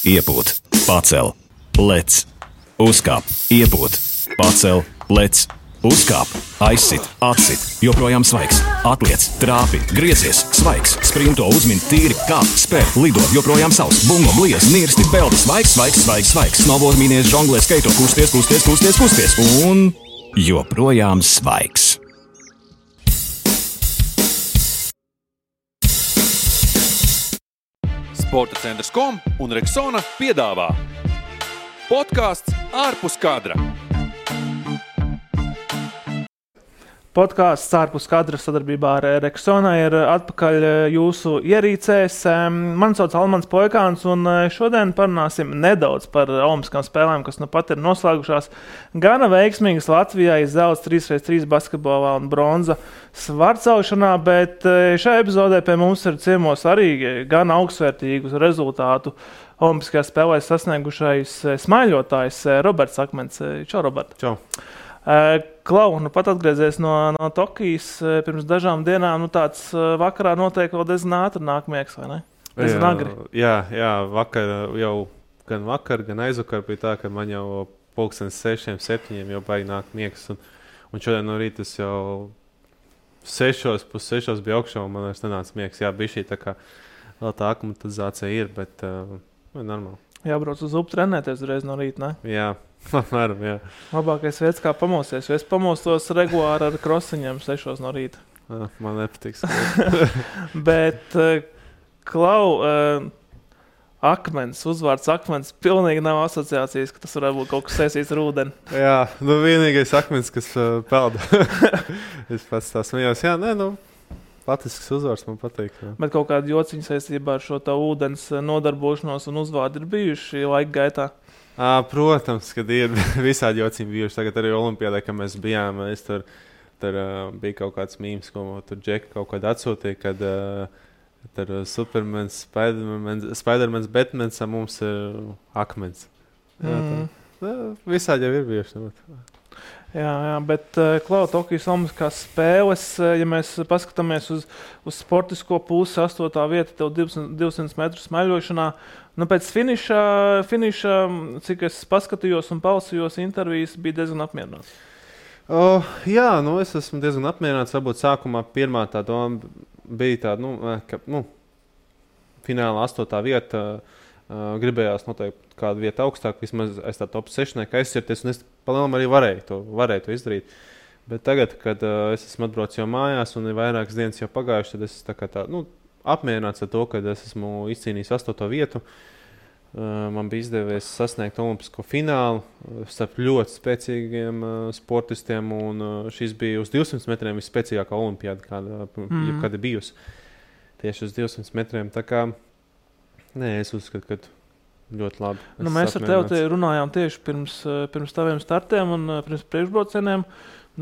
iepūt, pacel, lec, uzkāp, iepūt, pacel, lec, uzkāp, aizsit, atsit, joprojām svaigs, atliec, trāpi, griezies, svaigs, sprinto, uzmin, tīri, kāp, spēr, lido, joprojām savs, bungo, bliez, nirsti, peldi, svaigs, snowboard, mīnies, žonglē, skaito, kusties, un joprojām svaigs. Sporta centrs.com un Rexona piedāvā podcasts ārpus kadra. Podcasts ārpus kadra sadarbībā ar Rexona ir atpakaļ jūsu ierīcēs. Mani sauc Almans Poikāns, un šodien parunāsim nedaudz par olimpiskām spēlēm, kas nu pat ir noslēgušās. Gana veiksmīgas Latvijai zelts 3x3 basketbolā un bronza svarcaušanā, bet šajā epizodē pie mums ir ciemos arī gan augstsvērtīgu rezultātu olimpiskajās spēlēs sasniegušais smaiļotājs Roberts Akmens. Čau, Robert! Čau! Klau, nu pat atgriezies no Tokijas pirms dažām dienām, nu tāds vakarā notiek vēl diezgan ātri nākamieks, vai ne? Diezgan agri. Jā, vakar jau gan aizvakar bija tā, ka man jau 6:00, 7:00 jau baigi nāk miegs, un šodien no rīta es jau 5:30 bija augšā, un man vairs nenāca miegs. Jā, bija šī tā kā vēl tā aklimatizācija ir, bet normāli. Jābrauc uz upi trenēties uzreiz no rīta, ne? Jā. Apmēram, jā. Labākais veids, kā pamosties. Es pamostos regulāri ar krosiņiem 6:00 no rīta. Man nepatiks. Bet, Klau, Akmens, uzvārds Akmens, pilnīgi nav asociācijas, ka tas varētu būt kaut kas saistīts ar ūdeni. Jā, nu vienīgais Akmens, kas pelda. Es pats tā smējos. Jā, latviešu uzvārds man patīk. Jā. Bet kaut kāda jociņa saistībā ar šo tā ūdens nodarbošanos un uzvārdi ir bijuši laika gaitā? Protams, kad ir visādi jociņi bijuši. Tagad arī Olimpiādē, kad mēs bijām, tur bija kaut kāds mīms, ko tur Džeka kaut kādā atsūtīja, kad tur Supermans, Spidermans, Batmans, mums ir Akmens. Visādi jau ir bijuši. Jā, bet Klau, Tokijas Olimpiskās spēles, ja mēs paskatāmies uz sportisko pusi, 8. vieta, tev 200 metru smaļošanā, pēc finiša, cik es paskatījos un palasījos intervijas, bija diezgan apmierināts. Jā, es esmu diezgan apmierināts. Varbūt sākumā pirmā tā doma bija tāda, ka finālā 8. vieta gribējās noteikti kādu vietu augstāk, vismaz aiz tā top 6 aizsirties, un es palielam arī varēju to izdarīt. Bet tagad, kad es esmu atbraucis jau mājās un ir vairākas dienas jau pagājuši, tad es apmierināts ar to, ka es esmu izcīnījis 8. vietu. Man bija izdevies sasniegt olimpisko finālu starp ļoti spēcīgiem sportistiem, un šis bija uz 200 metriem visspēcīgākā olimpiāda, kāda ir bijusi. Tieši uz 200 metriem. Tā kā, es uzskatu, ka ļoti labi. Mēs ar tevi runājām tieši pirms taviem startiem un pirms priekšbraucieniem.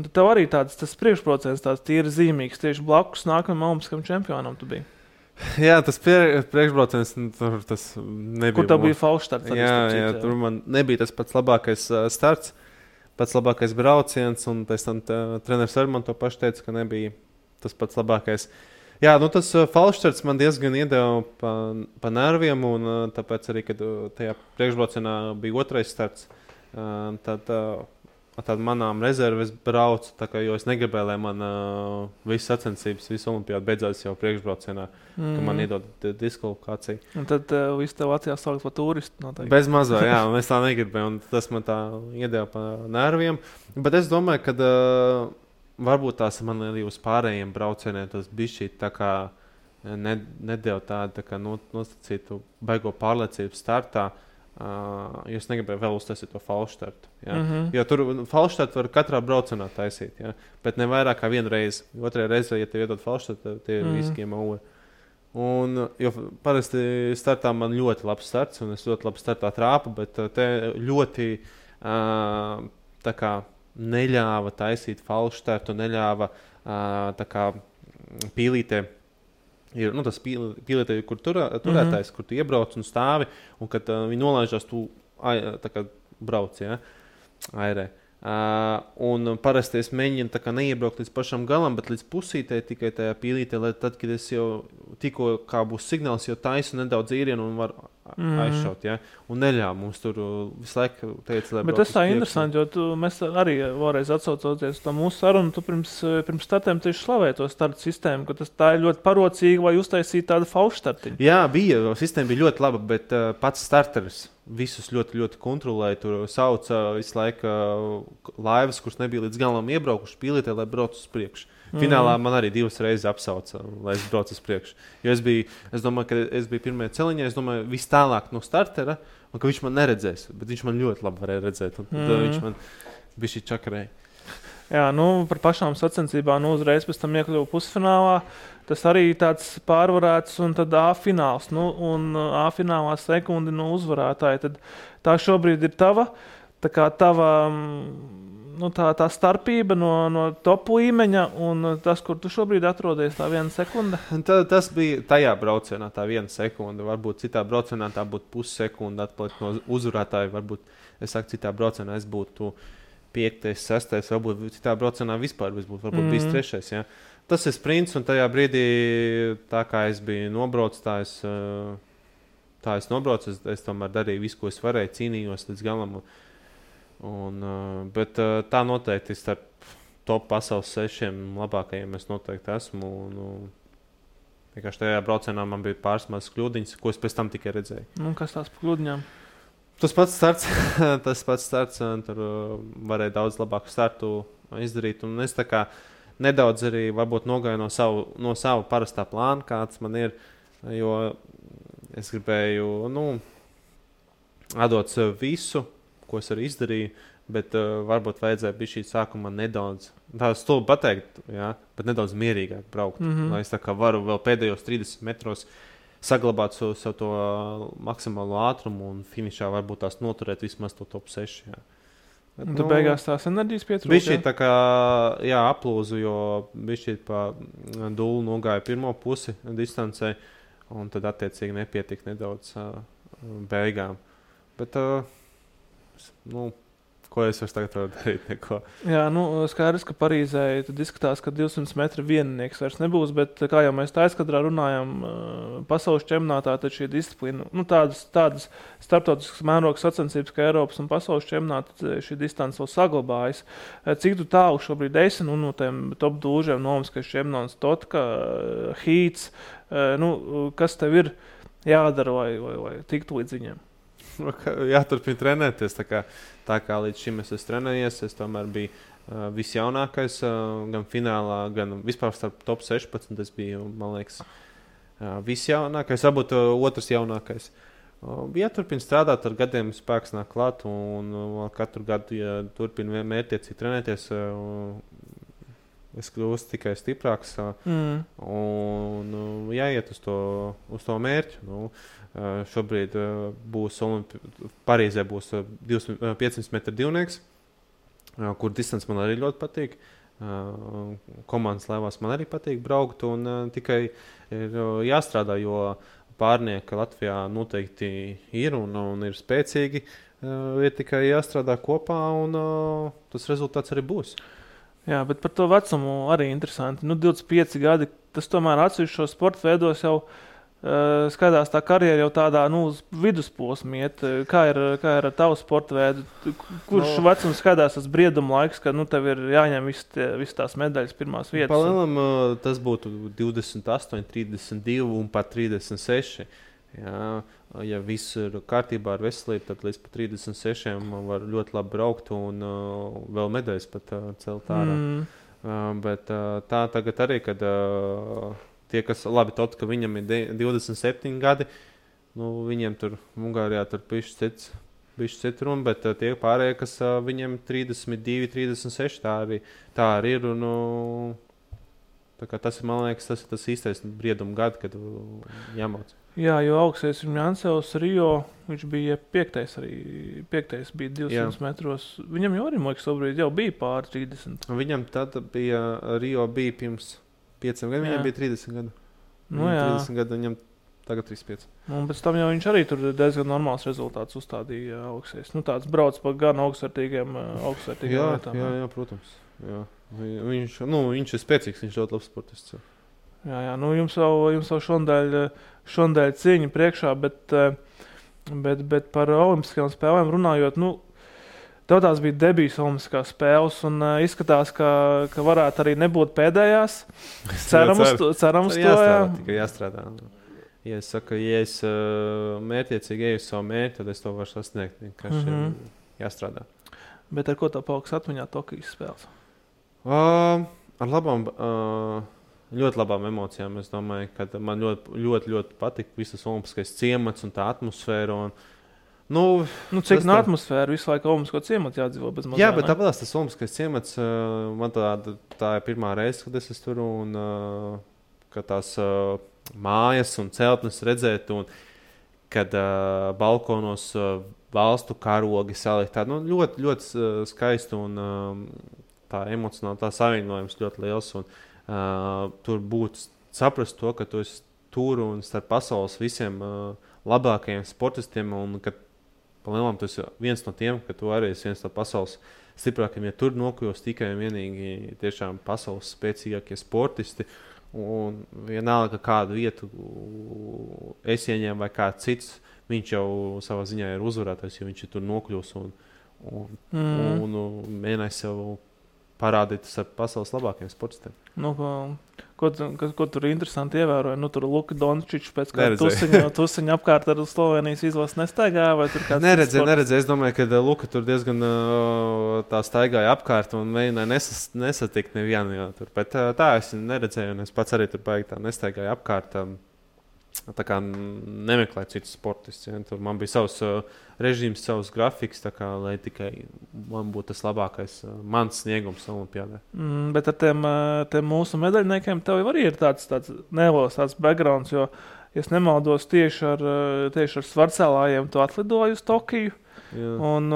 Tev arī tas priekšbrauciens tāds tīri zīmīgs, tieši blakus nākamajam olimpiskam čempionam tu biji. Jā, tas priekšbrauciens, tas nebija. Kur tev bija falšstarts? Jā, tur man nebija tas pats labākais starts, pats labākais brauciens, un pēc tam treneris arī man to pašu teica, ka nebija tas pats labākais. Jā, tas falšstarts man diezgan iedeva pa nerviem, un tāpēc arī, kad tajā priekšbraucienā bija otrais starts, tad manām rezerves braucu, jo es negribēju, lai man visas sacensības, visu olimpiādu beidzās jau priekšbraucienā, ka man iedod diskvalifikāciju. Un tad visu tev Latvijā saukt par turistu noteikti. Bez mazā, jā, un es tā negribēju, un tas man tā iedeva pa nerviem. Bet es domāju, ka varbūt tās man arī uz pārējiem braucieniem tas bišķi tā kā nedēļ tādu nostacītu baigo pārliecību startā, jo es negribēju vēl uztaisīt to falšstartu. Jo tur falšstartu var katrā braucienā taisīt, bet ne vairāk kā vienu reizi. Otrajā reizē, ja tev iedod falšstartu, tie ir riskiem ūri. Jo parasti startā man ļoti labs starts, un es ļoti labi startā trāpu, bet te ļoti tā kā neļāva taisīt falšstartu, neļāva pīlītē. Ir tas pīlītē, kur turētājs, kur tu iebrauc un stāvi, un kad viņi nolaižās, tu brauc, airē. Un parasti es mēģinu neiebraukt līdz pašam galam, bet līdz pusītē tikai tajā pīlītē, lai tad, kad es jau tikko kā būs signāls, jau taisu nedaudz īrienu un var aizšaut, ja? Un neļāva mums tur visu laiku teica, lai Bet tas tā interesanti, jo mēs arī vēlreiz atsaucoties to mūsu sarunu, tu pirms startiem tieši slavēji to startu sistēmu, ka tā ir ļoti parocīga, vai uztaisīt tādu faušu startiņu. Jā, sistēma bija ļoti laba, bet pats starteris visus ļoti, ļoti kontrolēja. Tur sauca visu laiku laivas, kuras nebija līdz galam iebraukuši pīlītē, lai brauc uz priekšu. Finālā man arī 2 reizes apsauca, lai es braucu uz priekšu. Jo es domāju, ka es biju pirmajā celiņā, es domāju, vis tālāk no startera, un ka viņš man neredzēs, bet viņš man ļoti labi varēja redzēt, un tad viņš man bija šī čakarēja. Jā, par pašām sacensībām uzreiz pēc tam iekļuvu pusfinālā. Tas arī tāds pārvarēts, un tad A fināls, un A finālā sekundi no uzvarētāja. Tad tā šobrīd ir tava, tā starpība no top līmeņa un tas, kur tu šobrīd atrodies, tā 1 sekunde? Tas bija tajā braucienā, tā 1 sekunde. Varbūt citā braucienā tā būtu pussekunde atpalikt no uzvarētāja. Varbūt, citā braucienā es būtu 5., 6., varbūt citā braucienā vispār būtu varbūt bijis 3. Ja? Tas ir sprints, un tajā brīdī, tā kā es biju nobraucis, tā es nobraucu, es tomēr darīju visu, ko es varēju, cīnījos līdz galam. Bet tā noteikti starp top pasaules 6 labākajiem es noteikti esmu. Vienkārši tajā braucienā man bija pāris mazas kļūdiņas, ko es pēc tam tikai redzēju. Kas tās par kļūdiņām? Tas pats starts, tur varēja daudz labāku startu izdarīt. Un es tā kā nedaudz arī varbūt nogāju no savu parastā plāna, kāds man ir, jo es gribēju, atdot sev visu, ko es arī izdarīju, bet varbūt vajadzēja bija šī sākuma nedaudz, tā stulbi pateikt, jā, bet nedaudz mierīgāk braukt, lai es tā kā varu vēl pēdējos 30 metros saglabāt savu to maksimālo ātrumu un finišā varbūt tās noturēt vismaz to top 6. Jā. Bet, tu beigās tās enerģijas pietrūka? Bija šī tā kā, aplūzu, jo bija šī pa dūlu nogāja pirmo pusi distancē, un tad attiecīgi nepietika nedaudz beigām. Bet, ko es vairs tagad varu darīt? Neko. Jā, skaidrs, ka Parīzē tad izskatās, ka 200 metru viennieks vairs nebūs, bet kā jau mēs tā aizkadrā runājam, pasaules čempionātā, tad šī disciplīna, tādas starptautiskas mērogas sacensības, kā Eiropas un pasaules čempionāta, šī distance vēl saglabājas. Cik tu tālu šobrīd esi, no tiem top dūžiem, Olimpiskais čempionāts, Totka, Hīts, kas tev ir jādara, lai tiktu līdz viņiem? Jāturpina trenēties. Tā kā līdz šim es esmu trenējies, es tomēr biju visjaunākais, gan finālā, gan vispār starp top 16. Es biju, man liekas, visjaunākais, varbūt otrs jaunākais. Jāturpina strādāt, ar gadiem spēks nāk klāt, un katru gadu, ja turpina mērķiecīgi trenēties, es kļūstu tikai stiprāks un jāiet uz to mērķu. Šobrīd būs Parīzē būs 500 metru divnieks, kur distance man arī ļoti patīk. Komandas laivās man arī patīk braukt, un tikai ir jāstrādā, jo pārnieki Latvijā noteikti ir un ir spēcīgi. Ir tikai jāstrādā kopā, un tas rezultāts arī būs. Jā, bet par to vecumu arī interesanti. 25 gadi, tas tomēr atsevišķos sporta veidos jau skatās tā karjera jau tādā uz vidusposmu iet. Kā ir ar tavu sporta veidu? Kurš vecums skatās tas brieduma laiks, kad tev ir jāņem visas tās medaļas pirmās vietas? Palielam tas būtu 28, 32 un pat 36. Jā, ja viss ir kārtībā ar veselību, tad līdz pat 36 var ļoti labi braukt un vēl medaļas pat celt ārā. Bet tā tagad arī, kad tie, kas labi tot, ka viņam ir 27 gadi, viņiem tur Ungārijā tur bišķi cits runa, bet tie pārējie, kas viņiem 32, 36, tā arī ir. Tā kā tas ir, man liekas, tas ir tas īstais brieduma gadi, kad jāmauc. Jā, jo augstais ir Jansevs Rio, viņš bija 5. bija 200 metros. Viņam jau arī, man liekas, šobrīd jau bija pāri 30. Viņam tad bija, Rio bija pirms 5 gadiem, viņam bija 30 gadu. 30 gadu, viņam tagad 35. Un pēc tam jau viņš arī tur diezgan normāls rezultāts uzstādīja augstais. Tāds brauc pa gan augstvērtīgiem lietām. Jā, protams. Jā. Viņš ir spēcīgs, viņš ļoti labs sportists. Jā, jums jau šodien cīņa priekšā, bet Bet par olimpiskajām spēlēm runājot, tev tās bija debijas olimpiskās spēles, un izskatās, ka varētu arī nebūt pēdējās. Ceram uz to. Tikai jāstrādā. Ja es saku, ja es mērķiecīgi eju uz savu mērķi, tad es to varu sasniegt. Vienkārši jāstrādā. Bet ar ko tev paliks atmiņā Tokijas spēles? Ar labām, ļoti labām emocijām. Es domāju, ka man ļoti patika visas olimpiskais ciemats un tā atmosfēra. Cik no atmosfēra visu laiku olimpisko ciematu jādzīvo bez mazām? Jā, bet tāpēc tas olimpiskais ciemats, man tā ir pirmā reize, kad es tur un ka tās mājas un celtnes redzēt, un kad balkonos valstu karogi salikt. Ļoti, ļoti skaisti un tā emocionāli tā savienojums ļoti liels. Un, tur būtu saprast to, ka tu esi tur un starp pasaules visiem labākajiem sportistiem, un ka palielam tu esi viens no tiem, ka tu arī esi viens no pasaules stiprākajiem. Ja tur nokļūs tikai un vienīgi tiešām pasaules spēcīgākie sportisti, un vienalga kādu vietu es ieņēmu vai kāds cits, viņš jau savā ziņā ir uzvarētājs, jo viņš ir tur nokļūs un mēģinājis sev parādīt ar pasaules labākajiem sportistiem. Ko tur interesanti ievēroja? Tur Luka Dončičs pēc kāda tusiņa apkārt ar Slovenijas izlases nestaigāja? Vai tur kāds neredzēju. Es domāju, ka Luka tur diezgan tā staigāja apkārt un mēģināja nesatikt nevienu. Bet tā es neredzēju, un es pats arī tur baigi tā nestaigāju apkārt. Tā kā nemeklēju citus sportistus. Ja? Tur man bija savs režīms, savs grafiks, lai tikai man būtu tas labākais mans sniegums olimpiādē. Bet ar tiem mūsu medaļniekiem tev jau arī ir tāds neliels backgrounds, jo, ja es nemaldos, tieši ar svarcēlājiem tu atlidoji uz Tokiju. Un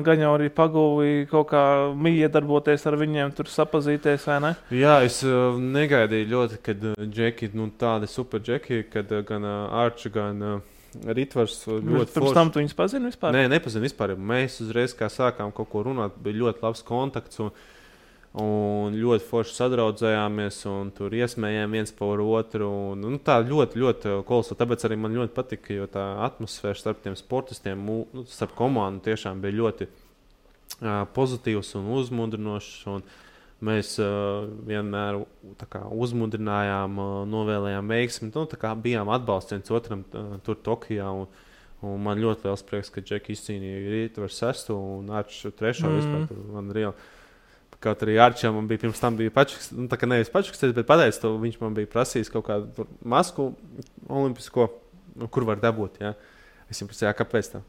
gan jau arī pagūvi kaut kā iedarboties ar viņiem, tur sapazīties, vai ne? Jā, es negaidīju ļoti, kad džeki, tādi super džeki, kad gan Arči, gan Ritvars ļoti Pirms tam tu viņus pazini vispār? Nē, nepazinu vispār. Mēs uzreiz, kā sākām kaut ko runāt, bija ļoti labs kontakts un ļoti forši sadraudzējāmies un tur iesmējām viens par otru. Tā ļoti, ļoti kolosāli. Tāpēc arī man ļoti patika, jo tā atmosfēra starp tiem sportistiem, starp komandu tiešām bija ļoti pozitīvs un uzmundrinošs. Un mēs vienmēr uzmundrinājām, novēlējām veiksmi. Bijām atbalsts viens otram tur Tokijā. Un man ļoti liels prieks, ka Džeki izcīnīja Rītvaru 6. un Arču 3. vispār tur man reāli. Kaut arī Arčam man bija pirms tam pačuks, nevis pačuksties, bet pateicis to, viņš man bija prasījis kaut kādu masku olimpisko, kur var dabūt, jā. Es viņam prasīju, kāpēc tā?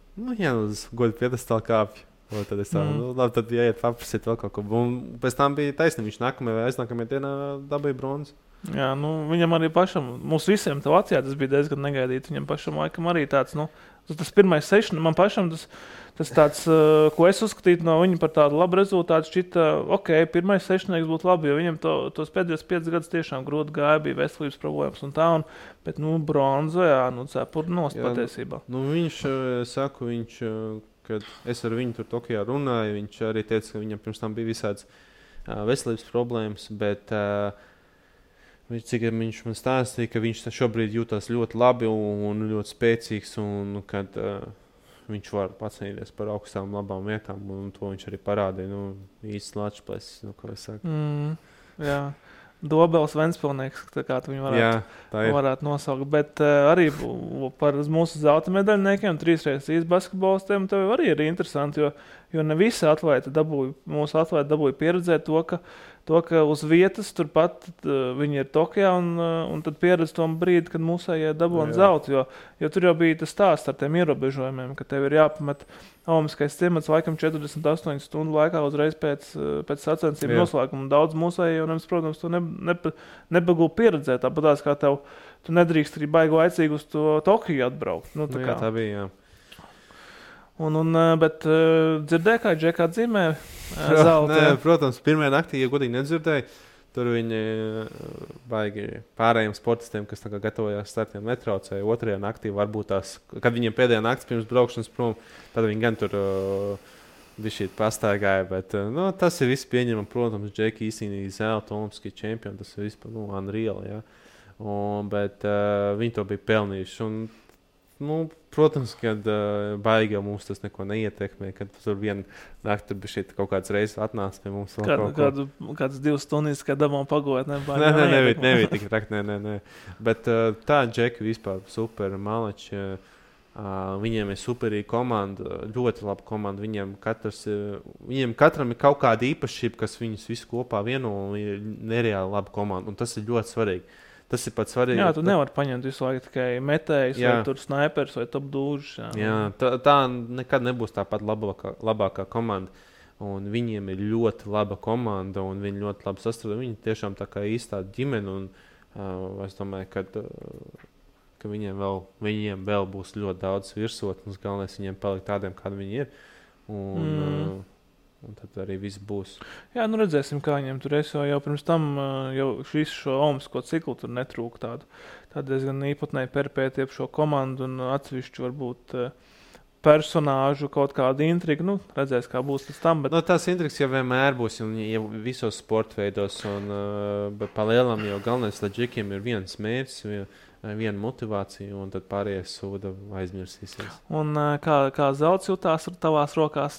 Uz godu piedestālu kāpju. Tad es tā, labi, tad jāiet paprasīt vēl kaut ko. Un pēc tam bija taisnība, viņš nākamajā vai aiznākamajā dienā dabīja bronzu. Jā, viņam arī pašam, mums visiem tev acījā tas bija diezgan negaidīti, viņam pašam laikam arī tāds, tas pirmais sešana, man pašam tas tāds, ko es uzskatītu no viņa par tādu labu rezultātu, šķita, pirmais sešanieks būtu labi, jo viņam tos pēdējos 5 gadus tiešām grūti gāja, bija veselības problēmas un tā, bet, bronza, jā, cepur nost patiesībā. Viņš, kad es ar viņu tur Tokijā runāju, viņš arī teica, ka viņam pirms tam bija visāds veselības problēmas, bet cik viņš man stāstīja, ka viņš šobrīd jūtas ļoti labi un ļoti spēcīgs, un kad viņš var pacīnīties par augstām labām vietām, un to viņš arī parādīja. Īsts lačplēs, ko es saku. Jā. Dobels Ventspilnieks, kā tu viņu varētu nosaukt. Bet arī par mūsu zelta medaļniekiem, 3x3 basketbolistiem, tev arī ir interesanti, jo ne visi mūsu atlēti dabūja pieredzēt to, ka uz vietas turpat viņi ir Tokijā un tad pieredz to brīdi, kad mūsējie dabūna zeltu, jo tur jau bija tas stāsts ar tiem ierobežojumiem, ka tev ir jāpamet olimpiskais ciemats laikam 48 stundu laikā uzreiz pēc sacensību noslēguma. Daudz mūsējie, protams, to nebagū pieredzēt, tāpatās kā tu nedrīkst arī baigi laicīgi uz to Tokiju atbraukt. Jā, tā bija, jā. Bet dzirdēji, kā Džeka atzīmē zelta? Nē, protams, pirmajā naktī, ja godīgi nedzirdēju, tur viņi baigi pārējiem sportistiem, kas gatavojās startiem, netraucēja. Otrajā naktī varbūt kad viņiem pēdējā nakts pirms braukšanas prom, tad viņi gan tur bišķīt pastaigāja, bet tas ir viss pieņemam, protams, Džeka izcīnīja zelta olimpiskie čempioni, tas ir vispār unreal, jā. Bet viņi to bija pelnījuši. Un protams, kad baigi jau mums tas neko neietekmē, kad tur viena nakti bija šeit kaut kāds reizes atnāca pie mums. Kādas 2 stundas, kad dabām pagot, nebija tik traki, nē. Bet tā Džeki vispār super maleči. Viņiem ir superīga komanda, ļoti laba komanda. Viņiem katram ir kaut kāda īpašība, kas viņus visu kopā vieno un ir nereāli laba komanda. Un tas ir ļoti svarīgi. Tas ir pats svarīgi. Jā, tu nevari paņemt visu laiku tikai metējus, vai tur snaipers, vai top dūžus. Jā, tā nekad nebūs tāpat labākā komanda. Un viņiem ir ļoti laba komanda, un viņi ļoti labi sastrādā. Viņi tiešām tā kā īstā ģimene, un es domāju, ka viņiem vēl būs ļoti daudz virsotnes. Galvenais viņiem palikt tādiem, kādi viņi ir. Un tad arī viss būs. Jā, redzēsim, kā viņiem tur es jau pirms tam, jau visu šo olimpisko ciklu tur netrūka tādu diezgan īpatnēju perpēti ap šo komandu un atsevišķu varbūt personāžu kaut kādu intrigu. Redzēs, kā būs līdz tam. Bet... tās intrigas jau vienmēr būs, un jau visos sportveidos, bet pa lielam jau galvenais, lai džikiem ir viens mērķis, viena motivācija, un tad pārējais sūda aizmirsīsies. Un kā zelts jutās ar tavās rokās?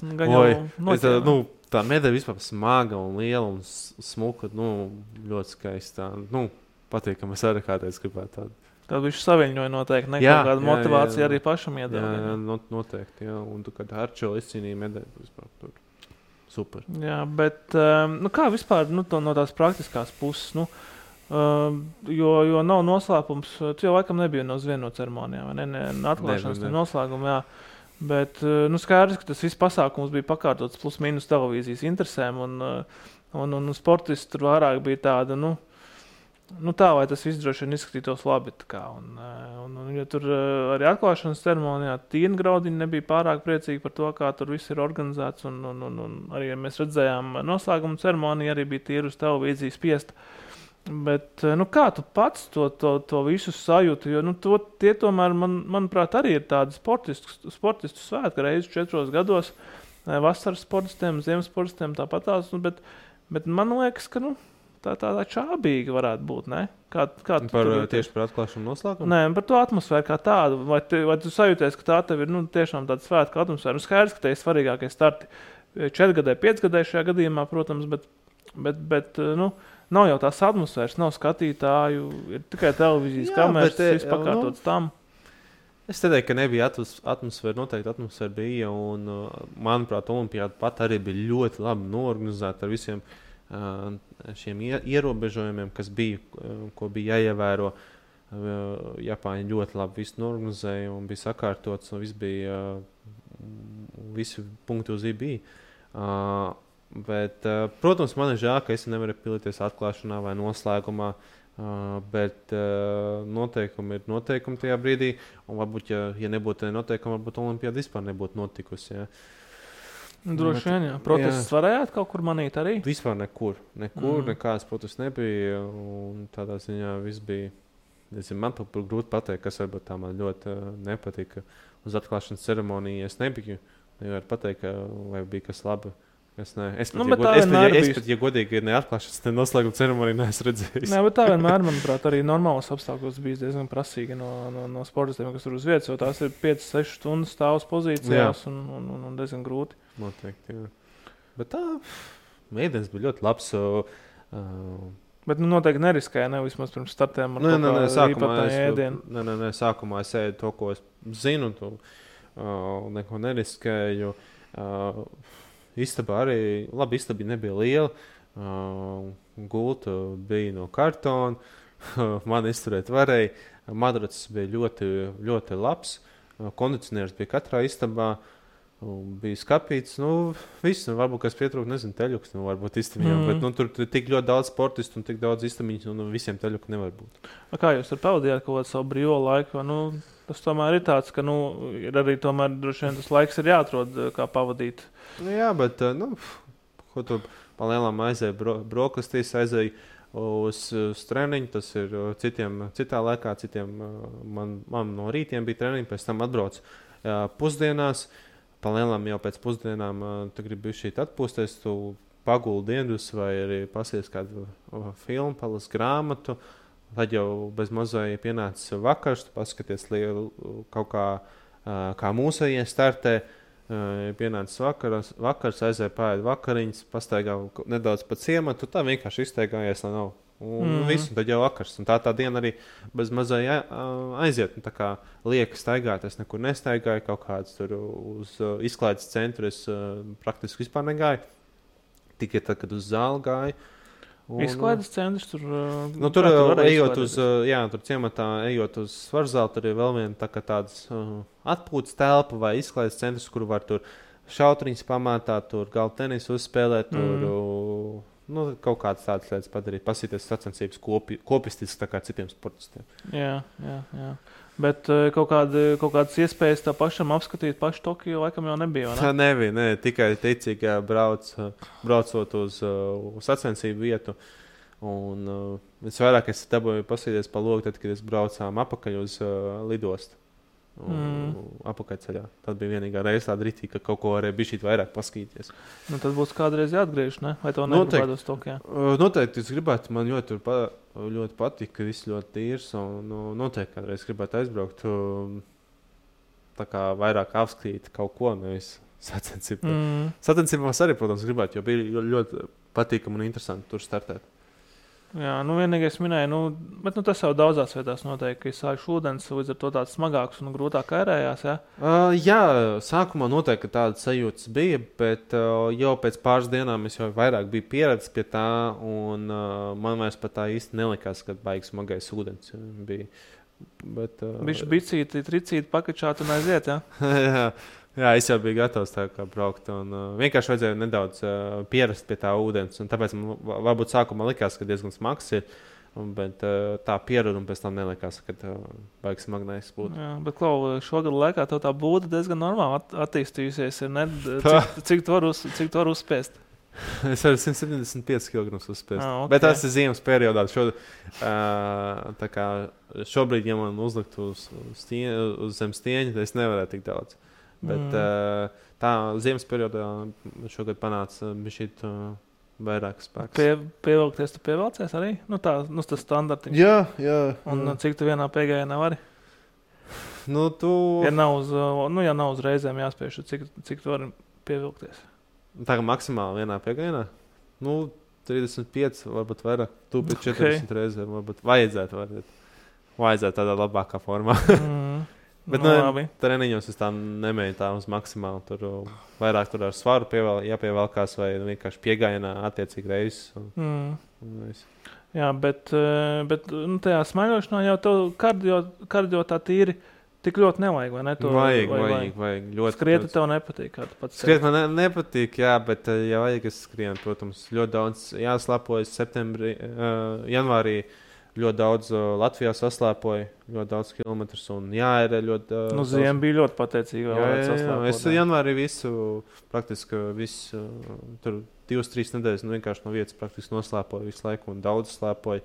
Tā medaļa vispār smaga un liela un smuka, ļoti skaista. Patīkami, es arī kādreiz gribētu tādu. Tad viņš saviņoja noteikti, kāda motivācija arī pašam iedeva. Jā, noteikti, jā. Un tu, kad Arčo izcīnīja medaļu, vispār tur super. Jā, bet kā vispār no tās praktiskās puses, jo nav noslēpums, tu jau laikam nebija uz vienu no ceremonijām, vai ne? Atklāšanas noslēguma, jā. Bet skaidrs, ka tas viss pasākums bija pakārtots plus mīnus televīzijas interesēm, un sportisti tur vairāk bija tāda, tā, vai tas viss droši vien izskatītos labi. Ja tur arī atklāšanas ceremonijā Tīna Graudiņa nebija pārāk priecīga par to, kā tur viss ir organizēts, un arī, ja mēs redzējām noslēguma ceremoniju, arī bija tīri uz televīzijas spiesta. Bet, kā tu pats to visu sajūti, jo tie tomēr, manuprāt, arī ir tādi sportistu svētki reizi 4 gados, vasaras sportistiem, ziemas sportistiem tāpatās, bet man liekas, ka, tā čābīga varētu būt, ne? Tieši par atklāšanu noslēgumu? Nē, par to atmosfēru kā tādu. Vai tu sajūties, ka tā tev ir tiešām tāda svētka atmosfēra? Skaidrs, ka te ir svarīgākie starti 4 gadē, 5 gadē šajā gadījumā, protams, bet nav jau tās atmosfēras, nav skatītāju, ir tikai televīzijas kameras, viss pakārtots tam. Es teiktu, ka nebija atmosfēra, noteikti atmosfēra bija, un, manuprāt, olimpiāda pat arī bija ļoti labi noorganizēta ar visiem šiem ierobežojumiem, kas bija, ko bija jāievēro. Japāņi ļoti labi visu norganizēja un bija sakārtots, un viss bija, visi punkti uz bija. Bet, protams, man ir žēl, ka es nevaru piedalīties atklāšanā vai noslēgumā, bet noteikumi ir noteikumi tajā brīdī, un varbūt, ja nebūtu noteikumi, varbūt olimpiāda vispār nebūtu notikusi. Ja. Droši vien, jā. Protestus varējāt kaut kur manīt arī? Vispār nekur, nekādas protestus nebija, un tādā ziņā viss bija, man pat grūti pateikt, kas varbūt tā man ļoti nepatika. Uz atklāšanas ceremoniju es nebiju, nevaru pateikt, vai bija kas labi. Es pat, ja godīgi neatklāšanas, ne noslēguma ceremoniju neesmu redzējis. Nē, bet tā vienmēr, manuprāt, arī normālos apstākļos bija diezgan prasīgi no sportistiem, kas tur uz vietas, jo tās ir 5-6 stundas stāvus pozīcijās un diezgan grūti. Noteikti, jā. Bet tā, mēdienas bija ļoti labs. Bet noteikti neriskēja, vismaz pirms startiem ar īpatnēju ēdienu. Nē, sākumā es ēdu to, ko es zinu, neko neriskēju. Istaba arī, labi, istaba nebija liela, gulta bija no kartona, man izturēt varēja, madracis bija ļoti, ļoti labs, kondicionieris bija katrā istabā, bija skapīts, viss, varbūt, kas pietrūk, teļuks, varbūt istabiņām, bet tur tik ļoti daudz sportistu un tik daudz istabiņus, un visiem teļuku nevar būt. Kā jūs ar pavadījāt kaut kādu savu brīvo laiku? Tas tomēr ir tāds, ka ir arī tomēr droši vien tas laiks ir jāatrod, kā pavadīt. Jā, bet, ko tu palielam aizēja brokastīs, aizēja uz treniņu, tas ir citā laikā, citiem man no rītiem bija treniņi, pēc tam atbrauc pusdienās, palielam jau pēc pusdienām tu gribi šīt atpūsties, tu paguldi dienas vai arī pasies kādu filmu, palas grāmatu, tad jau bez mazai pienācis vakars, tu paskaties kaut kā mūsējie startē, pienācis vakars, aizēja pārēd vakariņas, pastaigā nedaudz pa ciematu, tā vienkārši izteigājies, lai nav. Un viss, un tad jau vakars. Un tā diena arī bez mazai aiziet. Un tā kā lieka staigāt, es nekur nestaigāju, kaut kāds tur uz izklaides centru es praktiski vispār negāju. Tikai tad, kad uz zāli gāju. Izklaides centrs tur... tur ejot uz, tur ciematā, ejot uz svarzāli, tur ir vēl viena tādas atpūtas telpa vai izklaides centrs, kur var tur šautriņas pamātāt, tur galda tenisu uzspēlēt, tur... kaut kādas tādas lietas padarīt, pasīties sacensības kopistiski tā kā citiem sportistiem. Jā. Bet kaut kādas iespējas tā pašam apskatīt pašu Tokiju laikam jau nebija, vai ne? Tā nebija, tikai ticīgi braucot uz sacensību vietu. Un visvairāk es dabūju pasīties pa logu, tad, kad es braucām apakaļ uz lidostu. Apakaļceļā. Tad bija vienīgā reize tāda ritīgi, ka kaut ko varēja bišķīt vairāk paskatīties. Tad būs kādreiz jāatgriež, ne? Vai to negribētu uz Tokijā? Noteikti es gribētu, man ļoti patīk, ka viss ļoti tīrs, un noteikti kādreiz gribētu aizbraukt, tā kā vairāk apskatīt kaut ko, nevis sacensību. Sacensībās arī, protams, gribētu, jo bija ļoti patīkami un interesanti tur startēt. Jā, vienīgais minēja, bet tas jau daudzās vietās noteikti, ka sākšu ūdens, līdz ar to tāds smagāks un grūtāk ērējās, jā? Jā, sākumā noteikti tādas sajūtas bija, bet jau pēc pāris dienām es jau vairāk biju pieredzis pie tā, un man vairs pat tā īsti nelikās, kad baigs smagais ūdens bija. Bišķi bicīti, tricīti, pakačāt un aiziet, jā? Jā, es jau biju gatavs tā kā braukt, un vienkārši vajadzēja nedaudz pierast pie tā ūdens, un tāpēc man varbūt sākumā likās, ka diezgan smags ir, bet tā pierada un pēc tam nelikās, ka baigs smagnējs būtu. Jā, bet Klau, šogad laikā tev tā būda diezgan normāli attīstījusies, ir, ne? Cik tu var uzspēst? Es varu 175 kg uzspēst, okay. Bet tas ir ziemas periodā. Šobrīd, ja man uzlikt uz zem stieņa, tad es nevarētu tik daudz. Bet tā ziemas periodā šogad panāca bišķīt vairāk spēks. Pievilkties tu pievilcies arī? Tas standartiņš. Jā. Un cik tu vienā piegājienā vari? Ja nav uz reizēm jāspiež, cik tu vari pievilkties? Tā kā maksimāli vienā piegājienā? 35, varbūt vairāk. Tu pēc 40 reizēm varbūt vajadzētu tādā labākā formā. Bet treniņos es tā nemēju tā uz maksimāli. Tur vairāk tur ar svaru jāpievelkās vai vienkārši piegājienā attiecīgi reizes. Jā, bet tajā smaiļošanā jau tev kardio tā tīri tik ļoti nevajag, vai ne? Vajag. Ļoti. Skriet tev nepatīk, kā tu pats skriet man nepatīk, jā, bet ja vajag es skrienu, protams, ļoti daudz jāslēpojas septembrī, janvārī. Ļoti daudz Latvijā saslēpoja, ļoti daudz kilometrus un jāērē ļoti daudz. Ziema bija ļoti pateicīga. Jā, es janvārī praktiski tur 2-3 nedēļas vienkārši no vietas praktiski noslēpoju visu laiku un daudz slēpoju.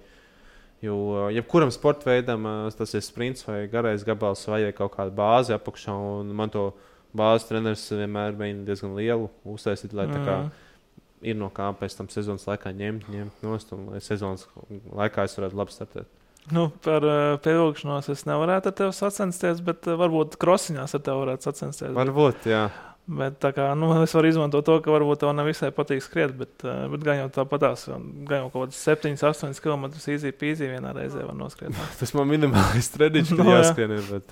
Jo jebkuram sporta veidam tas ir sprints vai garais gabals vajag kaut kādu bāzi apakšā, un man to bāzes treneris vienmēr mēģina diezgan lielu uztaisīt, lai tā kā ir no kā pēc tam sezonas laikā ņemt nost, un lai sezonas laikā es varētu labi startēt. Par pievilkšanos es nevarētu ar tevi sacensties, bet varbūt krosiņās ar tevi varētu sacensties. Varbūt, jā. Bet tā kā, es varu izmantot to, ka varbūt tev nevisai patīk skriet, bet gan jau tāpatās, gan jau kaut kāds 7-8 km easy peasy vienā reizē var noskriet. Tas man minimālis treniņš, kad jāskrien, bet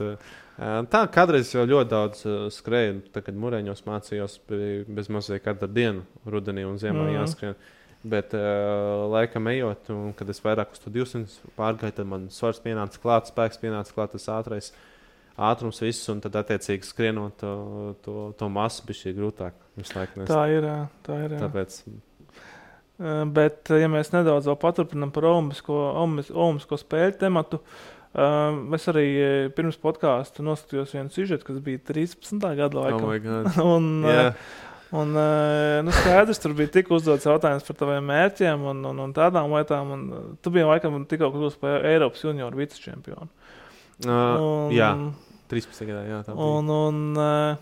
tā kādreiz jau ļoti daudz skrēju, kad Mureņos mācījos bez mazliet katru dienu rudenī un ziemā jāskrien. Bet laikam ejot, un kad es vairāk uz to 200 pārgāju, tad man svars pienāca klāt, spēks pienāca klāt, tas ātrums viss, un tad attiecīgi skrienot to masu bija šī grūtāk. Tā ir. Tāpēc. Bet, ja mēs nedaudz vēl paturpinām par olimpisko spēļu tematu, es arī pirms podkāsta noskatījos vienu sižetu, kas bija 13. gada laikam. Oh my God. Un skaidrs, tur bija tik uzdots jautājums par taviem mērķiem un tādām lietām, un tu biji laikam tikko kļūst par Eiropas junioru vicečempionu. Jā, 13. gadā, jā. Tā bija.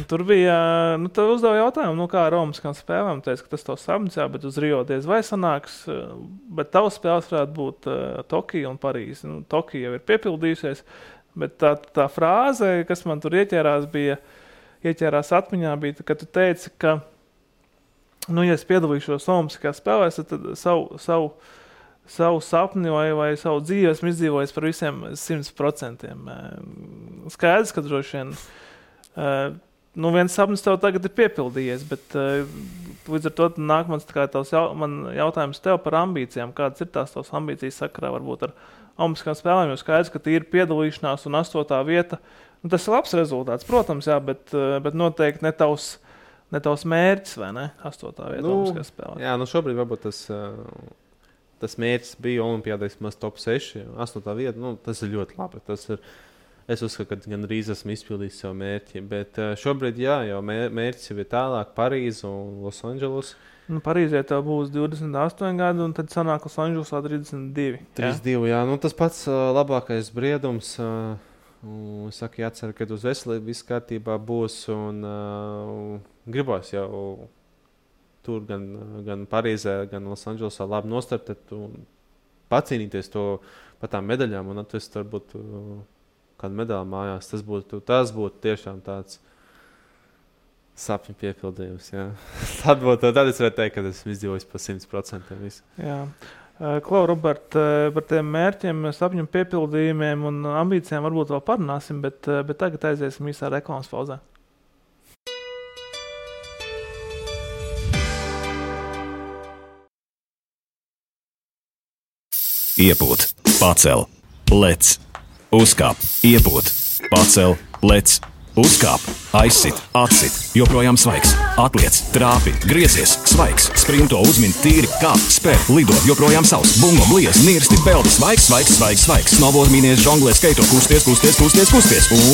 Tur bija, tu uzdev jautājumu, kā ar Olimpiskām spēlēm. Teicu, ka tas tavs sapnis, jā, bet uz Rio diez vai sanāks. Bet tavs spēles varētu būt Tokija un Parīze. Tokija jau ir piepildījusies, bet tā frāze, kas man tur ieķērās atmiņā, bija, ka tu teici, ka, ja es piedalīšos Olimpiskās spēlēs, tad savu sapni vai savu dzīvi esmu izdzīvojis par visiem 100%. Skaidrs, ka droši vien viens sapnis tev tagad ir piepildījies, bet līdz ar to nāk man jautājums tev par ambīcijām. Kādas ir tās tavas ambīcijas sakarā varbūt ar Olimpiskām spēlēm? Jo skaidrs, ka ir piedalīšanās un 8. vieta. Tas ir labs rezultāts, protams, jā, bet noteikti ne tavs mērķis, vai ne? 8. vieta Olimpiskās spēlēm. Jā, šobrīd varbūt tas mērķis bija Olimpiādē vismaz top 6, 8. vieta. Tas ir ļoti labi. Es uzskatu, ka gan drīz esmu izpildījis savu mērķi, bet šobrīd jau mērķis jau ir tālāk Parīze un Losandželos. Parīzē tev būs 28 gadi, un tad sanāk Losandželosā 32. 32, jā. Tas pats labākais briedums. Es saku, jācer, ka uz veselību viss kārtībā būs, un gribos jau tur gan Parīzē, gan Losandželosā labi nostartēt un pacīnīties par tām medaļām un atvest varbūt kādu medaļu mājās. Tas būtu tiešām tāds sapņu piepildījums. Tad es varētu teikt, ka esmu izdzīvojis par 100% visu. Jā. Klau, Robert, par tiem mērķiem, sapņu piepildījumiem un ambīcijām varbūt vēl parunāsim, bet tagad aiziesim īsā reklāmas pauzē. Iepūt, pacel, lec, uzkāp, iepūt, pacel, lec, uzkāp, aizsit, atsit, joprojām svaigs, atliec, trāpi, griezies, svaigs, sprinto, uzmin, tīri, kāp, spēr, lido, joprojām savs, bungo, bliez, nirsti, peldi, svaigs, snowboard, mīnies, žonglē, skaito, kusties,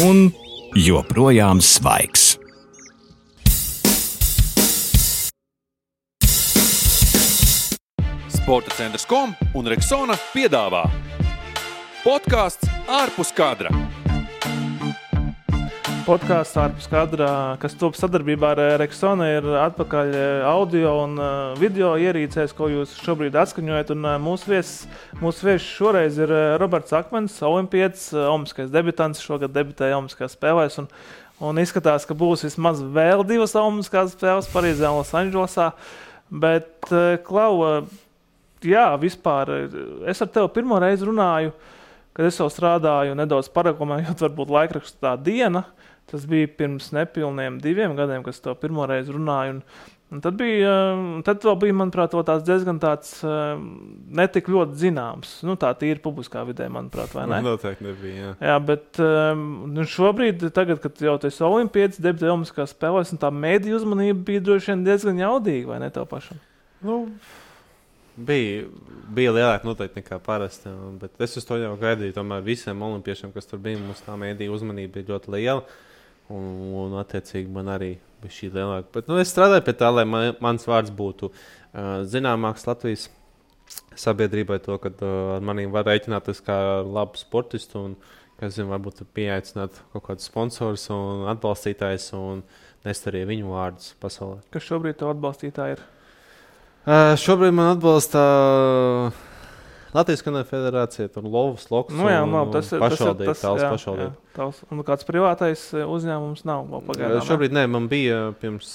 un joprojām svaigs. Sporta centrs.com un Rexona piedāvā podkāsts ārpus kadra. Podkāsts ārpus kadra, kas top sadarbībā ar Rexona, ir atpakaļ audio un video ierīcēs, ko jūs šobrīd atskaņojat. Un mūsu viesis šoreiz ir Roberts Akmens, olimpietis, olimpiskais debitants, šogad debitēja Olimpiskās spēlēs. Un izskatās, ka būs vismaz vēl 2 Olimpiskās spēles Parīzē un Losandželosā. Bet, Klau, jā, vispār, es ar tevi pirmo reizi runāju, kad es jau strādāju nedaudz paraklamējot, varbūt laikrakstu Tā diena. Tas bija pirms nepilniem 2 gadiem, kad es tev pirmo reizi runāju. Un tad vēl bija, manuprāt, tāds diezgan tāds netik ļoti zināms. Tā tīri publiskā vidē, manuprāt, vai ne? Noteikti nebija, jā. Jā, bet šobrīd, tagad, kad jau tu esi olimpietis, debitēji Olimpiskās spēlēs, un tā mēdīju uzmanība bija droši vien diezgan jaudīga, vai ne tev pašam? Bija lielāka noteikti nekā parasti, bet es uz to jau gaidīju. Tomēr visiem olimpiešiem, kas tur bija, mums tā mēdīja uzmanība bija ļoti liela. Un attiecīgi man arī bija šī lielāka. Bet es strādāju pie tā, lai mans vārds būtu zināmāks Latvijas sabiedrībai, to, ka ar maniem var rēķināties kā labu sportistu un, kas zina, varbūt pieaicināt kaut kādus sponsorus un atbalstītājus un nest arī viņu vārdus pasaulē. Kas šobrīd tev atbalstītāji ir? Šobrīd man atbalsta Latvijas Kanoja federācija, Lovas, Loks pašvaldība. Un kāds privātais uzņēmums nav vēl pagaidām? Šobrīd nē, man bija pirms,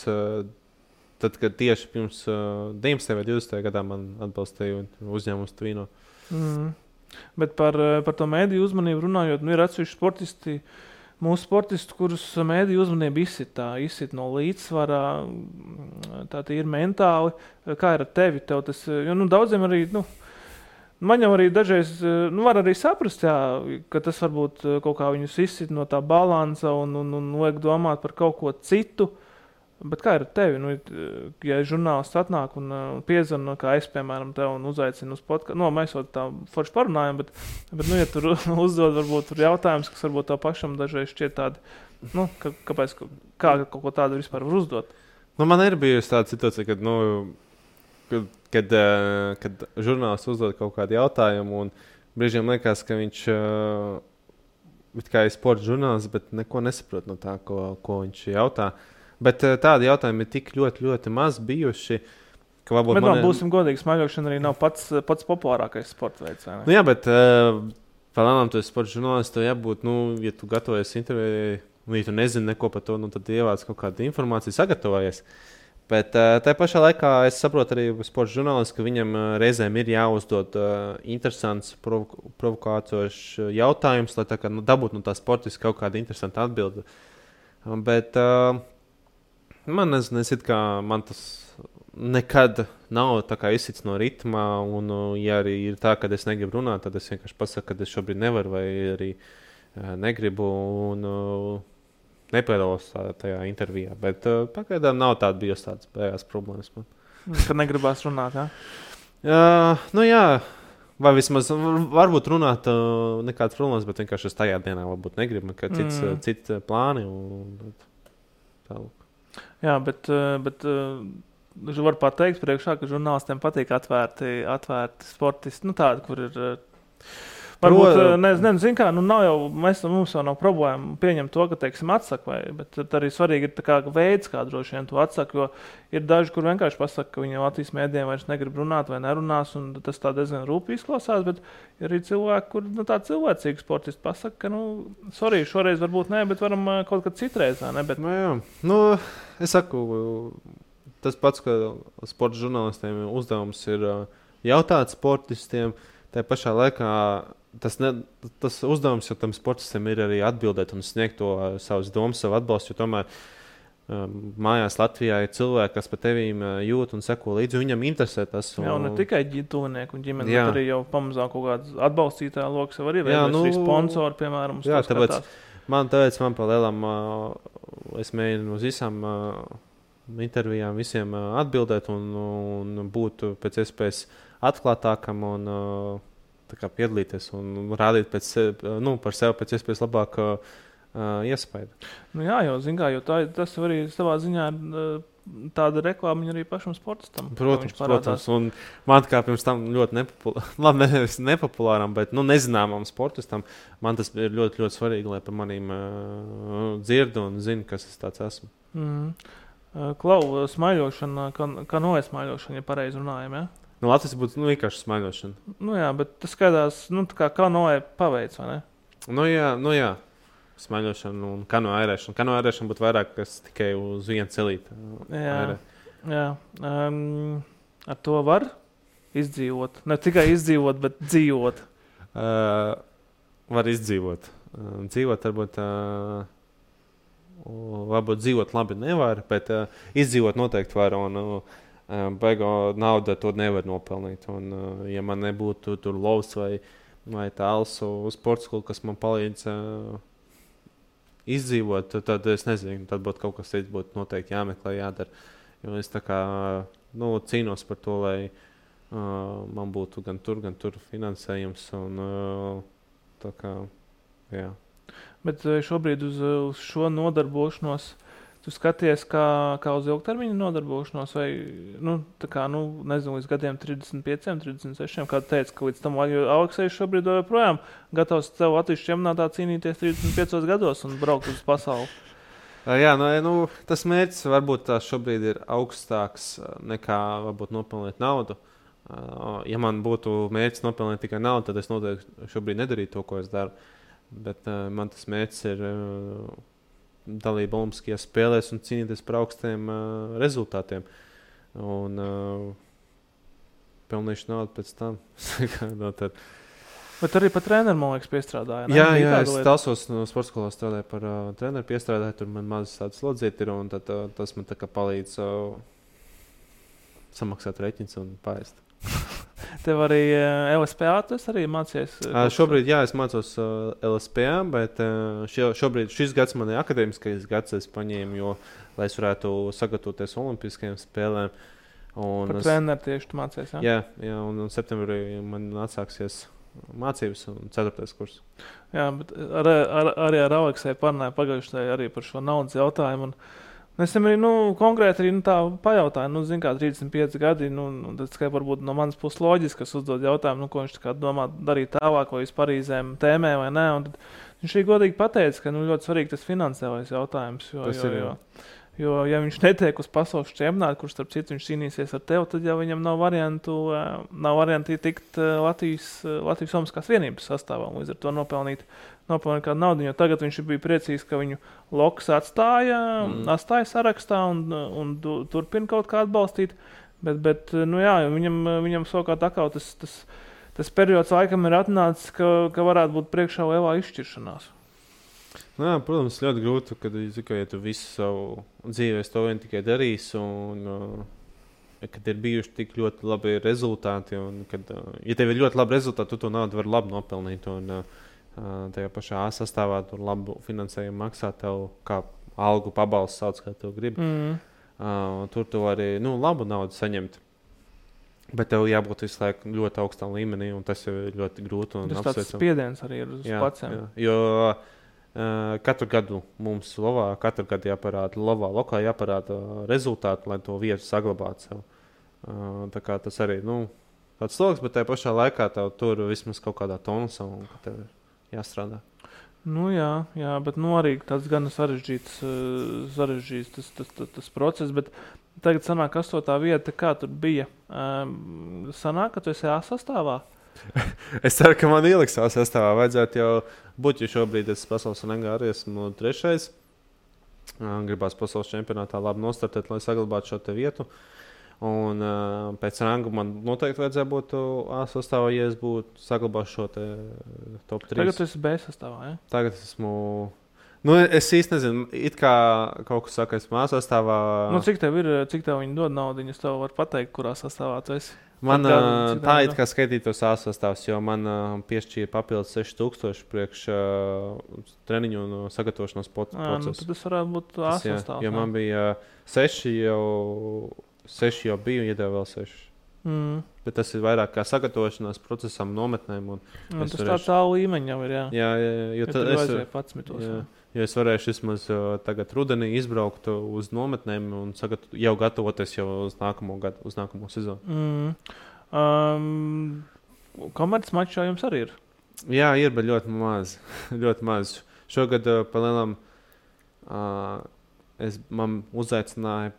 tad, kad tieši pirms 19. vai 20. gadā man atbalstīja uzņēmums Tvino. Bet par to mēdīju uzmanību runājot, ir atsevišķi sportisti, mūsu sportisti, kurus mēdīju uzmanība izsit no līdzsvarā, tā ir mentāli. Kā ir ar tevi? Tev tas, daudziem arī, man jau arī dažreiz, var arī saprast, jā, ka tas varbūt kaut kā viņus izsit no tā balansa un liek domāt par kaut ko citu. Bet kā ir ar tevi? Ja žurnālists atnāk un piezvana, kā es, piemēram, tev un uzaicinu uz podkāstu, mēs jau tā forši parunājam, bet ja tur uzdod varbūt tur jautājums, kas varbūt tev pašam dažreiz šķiet tādi, kāpēc, kā kaut ko tādu vispār var uzdot? Man ir bijusi tāda situācija, kad žurnālists uzdod kaut kādu jautājumu un brīžiem liekas, ka viņš kā ir sporta žurnālists, bet neko nesaprot no tā, ko viņš jautā. Bet tādi jautājumi ir tik ļoti, ļoti maz bijuši. Bet būsim godīgi, smaiļošana arī nav pats populārākais sporta veids. Nu jā, bet palēnām tu esi sporta žurnālists, tev jābūt, ja tu gatavojies intervijai, ja tu nezini neko par to, tad ievāc kaut kādu informāciju, sagatavojies. Bet tajā pašā laikā es saprotu arī sporta žurnālists, ka viņam reizēm ir jāuzdod interesants, provokācošs jautājums, lai dabūtu no tā sportiski kaut kāda interesanta atbilde. Bet man tas nekad nav tā kā izsits no ritma, un ja arī ir tā, ka es negribu runāt, tad es vienkārši pasaku, ka es šobrīd nevaru vai arī negribu un nepiedalos tajā intervijā. Bet pagaidām nav bijusi tādas bējās problēmas man. Kad negribās runāt, jā? Jā, vai vismaz varbūt runāt nekādas problēmas, bet vienkārši es tajā dienā varbūt negribu, ka cits plāni un Jā, bet var pateikt priekšā, ka žurnālistiem patīk atvērti sportisti, tādi, kur ir varbūt, nezinu kā, nav jau, mums jau nav problēma pieņemt to, ka, teiksim, atsaka, bet arī svarīgi ir tā kā veids, kā droši vien to atsaka, jo ir daži, kur vienkārši pasaka, ka viņi Latvijas mēdījiem vairs negrib runāt vai nerunās, un tas tā diezgan rūpīgi izklausās, bet ir arī cilvēki, kur tā cilvēcīgi sportisti pasaka, ka, šoreiz varbūt ne, bet varam kaut kad citreiz, ne, bet... Jā, es saku, tas pats, ka sporta žurnālistiem uzdevums ir jautāt sportistiem, tajā pašā laikā tas uzdevums jau tam sportistam ir arī atbildēt un sniegt to savas domas, savu atbalstu, jo tomēr mājās Latvijā ir cilvēki, kas par tevīm jūt un seko līdzi, viņam interesē tas. Jā, un ne tikai tuvinieki un ģimeni, bet arī jau pamazām kaut kāds atbalstītāja loks jau arī arī sponsori, piemēram. Jā, tāpēc man pa lielam es mēģinu uz visām intervijām visiem atbildēt un būt pēc iespējas atklātākam un piedalīties un rādīt par sevi pēc iespējas labāk iespēju. Jā, jo tas arī savā ziņā tāda reklāmiņa arī pašam sportistam. Protams, un man kā pirms tam ļoti nepopulāram, bet nezināmam sportistam, man tas ir ļoti, ļoti svarīgi, lai par manīm dzirdu un zinu, kas es tāds esmu. Klau, smaiļošana, kā noja smaiļošana, ja pareizi runājam, ja? Latvijas būtu vienkārši smaiļošana. Jā, bet tas skaidās, kā noja paveic, vai ne? Jā. Smaiļošana un kano ērēšana. Kano ērēšana būtu vairāk, kas tikai uz vienu celīti. Jā. Ar to var izdzīvot. Ne tikai izdzīvot, bet dzīvot. Var izdzīvot. Dzīvot varbūt dzīvot labi nevar, bet izdzīvot noteikti var. Un baigo naudu to nevar nopelnīt. Un, ja man nebūtu tur lovs vai tāls uz sporta skolu, kas man palīdz izdzīvot, tad es nezinu, tad būtu kaut kas cits, būtu noteikti jāmeklē, jādara. Jo es tā kā cīnos par to, lai man būtu gan tur finansējums un tā kā, jā. Bet šobrīd uz šo nodarbošanos tu skaties kā uz ilgtermiņa nodarbošanos vai, nezinu, līdz gadiem 35, 36, kā tu teici, ka līdz tam Aleksejs šobrīd joprojām gatavs tev Latvijas čempionātā cīnīties 35 gados un braukt uz pasauli. Jā, tas mērķis varbūt šobrīd ir augstāks nekā varbūt nopelnīt naudu. Ja man būtu mērķis nopelnīt tikai naudu, tad es noteikti šobrīd nedarītu to, ko es daru. Bet man tas mērķis ir dalība Olimpiskajās spēlēs un cīnīties par augstiem rezultātiem. Un pelnīšu naudu pēc tam. Bet arī par treneru, man liekas, piestrādāja. Jā, es Talsos no sporta skolā strādāju par treneru piestrādāju, tur man mazas tādas slodzīti ir, un tad tas man tā kā palīdz samaksāt reķins un paēst. Tev arī LSPA, tas arī mācies? Šobrīd, jā, es mācos LSPA, bet šobrīd šis gads man ir akadēmiskais gads, es paņēmu, jo, lai es varētu sagatavoties Olimpiskajām spēlēm. Par treneru tieši tu mācies, jā? Jā, un septembrī man atsāksies mācības un 4. kurs. Jā, bet arī ar Aleksēju parunāju pagājušajā arī par šo naudas jautājumu. Es arī, konkrēti arī tā pajautāju, zin kā 35 gadi, tas kā varbūt no manas puses loģiski, kas uzdod jautājumu, ko viņš tā kā domā darīt tālāk, vai vispār Parīzēm tēmē vai nē, un tad viņš arī godīgi pateica, ka, ļoti svarīgi tas finansiālais jautājums, jo, ja viņš netiek uz pasaules čempionātu, kurš starp citu viņš cīnīsies ar tevi, tad jau viņam nav varianti tikt Latvijas Olimpiskās vienības sastāvā, līdz ar to nopelnīt kādu naudu, jo tagad viņš bija priecīgs, ka viņu Loks atstāja sarakstā un turpina kaut kā atbalstīt, bet viņam savukārt atkal tas periods laikam ir atnācis, ka varētu būt priekšā lielā izšķiršanās. Jā, protams, ļoti grūti, kad ja tu visu savu dzīvi to vien tikai darīsi, un kad ir bijuši tik ļoti labi rezultāti, un kad, ja tev ir ļoti labi rezultāti, tu to naudu vari labi nopelnīt, un tajā pašā A sastāvā tur labu finansējumu maksā tev, kā algu pabalstu sauc, kā tev grib. Tur tu arī, labu naudu saņemt. Bet tev jābūt visu laiku ļoti augstā līmenī, un tas jau ir ļoti grūti. Tas tāds spiediens arī ir uz paciem. Jo katru gadu mums katru gadu jāparāda lokā jāparāda rezultāti, lai to vietu saglabātu sev. Tā kā tas arī, tāds sloks, bet tajā pašā laikā tev tur vismaz kaut kādā tonusā, un tev ir jāstrādā. Jā, bet arī tāds gan sarežģīts tas process, bet tagad sanāk 8. vieta, kā tur bija. Sanāk, ka tu esi A sastāvā? Es ceru, ka man ieliks A sastāvā. Vajadzētu jau būt, jo šobrīd es pasaules rangā arī esmu 3. Gribās pasaules čempionātā labi nostartēt, lai saglabātu šo te vietu. Un pēc ranga man noteikti vajadzēja būt A sastāvā, ja es būtu saglabājuši šo te top 3. Tagad tu esi B sastāvā, ja? Tagad esmu... es īsti nezinu, it kā kaut kas saka, esmu A sastāvā... Cik tev viņi dod naudu, es tev varu pateikt, kurā sastāvā tu esi? Man tā it kā skaitītos A sastāvs, jo man piešķīra papildus 6,000 priekš treniņu un sagatavošanās procesu. Tad tas varētu būt A sastāvs. Jo man bija 6 jau biju, iedēju vēl 6. Bet tas ir vairāk kā sagatavošanās procesam, nometnēm. Tas tāds A līmeņa jau ir, jā. Jā, jo tad vajadzēja 11. Jo es varēšu vismaz tagad rudenī izbraukt uz nometnēm un jau gatavoties jau uz nākamo gadu, uz nākamo sezonu. Komerces mačā jums arī ir? Jā, ir, bet ļoti maz. Ļoti maz. Šogad palielam man uzaicināja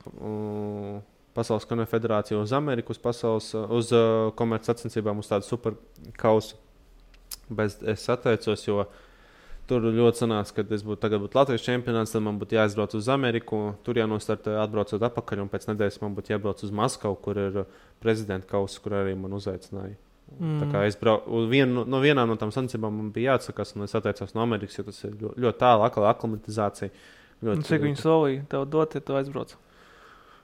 Pasaules konfederācija uz Ameriku, uz komerces sacensībām, uz tādu superkausu. Bet es atteicos, jo tur ļoti sanāca, ka tagad būtu Latvijas čempionāts, tad man būtu jāizbrauc uz Ameriku, tur jānostartē atbraucot atpakaļ, un pēc nedēļas man būtu jābrauc uz Maskavu, kur ir prezidenta kausa, kur arī man uzaicināja. Tā kā es vienām no tām sacensībām man bija jāatsakās, un es atteicos no Amerikas, jo tas ir ļoti tālu, aklimatizācija. Cik viņi solīja tev dot, ja tu aizbrauc?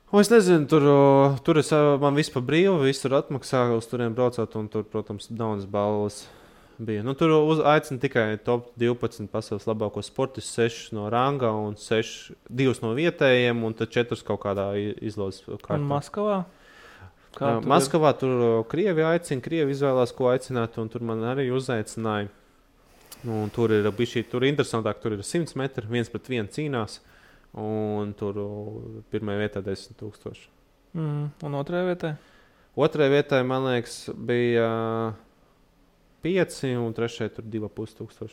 Es nezinu, tur man viss pa brīvu, viss tur atmaksā uz turiem braucot, un tur, protams, daudzas balvas bija. Tur aicina tikai top 12 pasaules labākos sportistus, 6 no ranga un 2 no vietējiem, un tad 4 kaut kādā izlozes kārtā. Un Maskavā? Maskavā tur Krievi aicina, Krievi izvēlās, ko aicināt, un tur man arī uzaicināja. Un tur ir interesantāk, tur ir 100 metri, 1 pret 1 cīnās. Un tur pirmajā vietā 10,000. Un otrajā vietā? Otrajā vietā, man liekas, bija 5, un trešajā tur 2,500.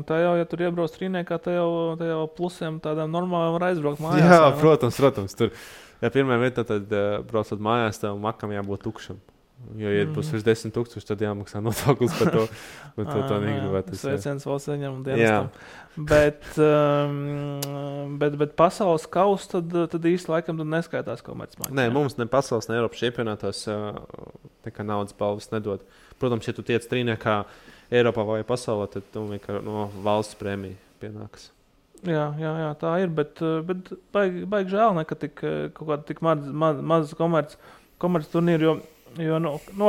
Tā jau, ja tur iebrauc trīniekā, tā jau plusiem tādām normālām var aizbraukt mājās. Jā, protams. Tur, ja pirmajā vietā, tad braucot mājās, tev makam jābūt tukšam. Jo, ja būs virs 10,000, tad jāmaksā nodoklis par to. Bet to tā negribētu. Sveiciens valsts ieņēmumu dienestam. Bet pasaules kausa tad īsti laikam neskaitās komercmačs. Nē, mums ne pasaules, ne Eiropas čempionātās nekā naudas balvas nedod. Protams, ja tu tiec trīniekā Eiropā vai pasaulē, tad tu vienkārši no valsts prēmija pienākas. Jā, tā ir, bet baigi žēl, ka kaut kāda tik maz komerc turnīru, jo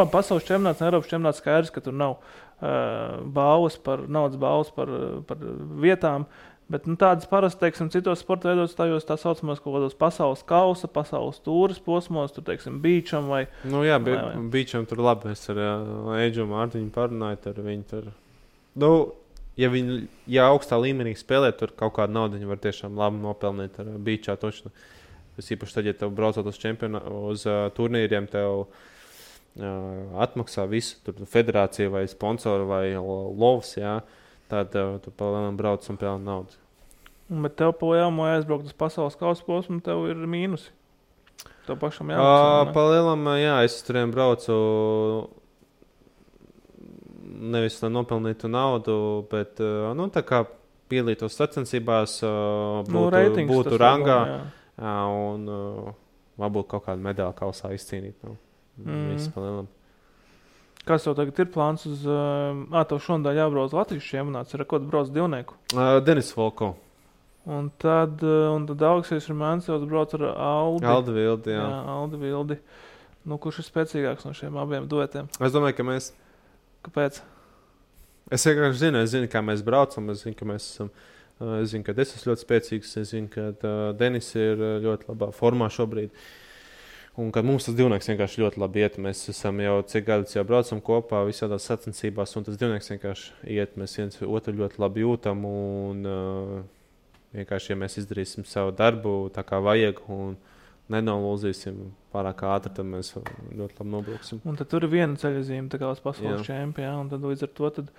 pasaules čempionāts un Eiropas čempionāts skaidrs, ka tur nav naudas balvas par vietām, bet tādas parasti, teiksim, citos sporta veidos tajos tā saucamās kaut kādos pasaules kausa, pasaules tūras posmos, tur, teiksim, Beacham vai... Beacham tur labi, es ar Eidžu Mārtiņu parunāju, tur viņi tur... ja augstā līmenī spēlē, tur kaut kādu naudu viņi var tiešām labi nopelnīt ar beachā točnu. Tas īpaši tad, ja tev braucot uz turnīriem, tev atmaksā visu, tur federācija vai sponsori vai lovs, jā, tad tu palēnām brauc un pelni naudu. Bet tev palēnām aizbraukt uz pasaules kausa posmu, tev ir mīnusi. Tev pašam jāmaksā, palēnām, jā, es turiem braucu nevis, lai nopelnītu naudu, bet, tā kā pielītos sacensībās, būtu rangā, un varbūt kaut kādu medaļu kausā izcīnīt. Viss palēnām. Kas tev tagad ir plāns uz... tev šonadēļ jābrauc Latvijas čempionāts, ir ko tu brauc divnieku? Denis Volko. Un tad Aleksis Rumāncevs brauc ar Aldi Vildi, jā. Aldi Vildi. Kurš ir spēcīgāks no šiem abiem duetiem? Es domāju, ka mēs... Kāpēc? Es vienkārši zinu, kā mēs braucam, es zinu, ka mēs esam, es zinu, ka es esmu ļoti spēcīgs, es zinu, ka Denis ir ļoti labā formā šobrīd, un ka mums tas divnieks vienkārši ļoti labi iet, mēs esam jau cik gadus jau braucam kopā visādās sacensībās, un tas divnieks vienkārši iet, mēs viens otru ļoti labi jūtam, un vienkārši, ja mēs izdarīsim savu darbu tā kā vajag, un nenolūzīsim pārāk ātri, tad mēs ļoti labi nobrauksim. Un tad tur ir viena ceļazīme, tā kā uz pasaules čempionu, un tad līdz ar to tad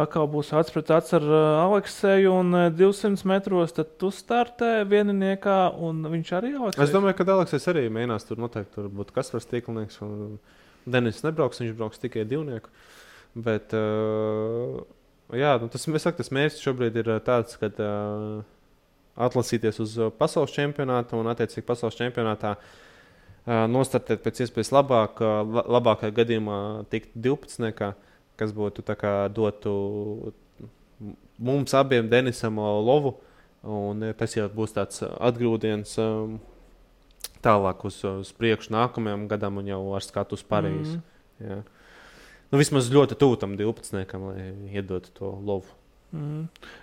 atkal būs acs pret acs ar Alekseju, un 200 metros tad tu startē vieniniekā, un viņš arī Aleksejs. Es domāju, ka Aleksejs arī mēģinās tur noteikti, tur būtu Kaspars Tīklnieks, un Denis nebrauks, viņš brauks tikai divnieku. Bet, tas mērķis šobrīd ir tāds, ka atlasīties uz pasaules čempionātu un attiecīgi pasaules čempionātā nostartēt pēc iespējas labākajā gadījumā tikt 12, kas būtu tā kā dotu mums abiem Denisam lovu, un tas jau būs tāds atgrūdiens tālāk uz priekšu nākamajam gadam un jau ar skatu uz Parīzi. Jā. Vismaz ļoti tūtam 12, lai iedotu to lovu.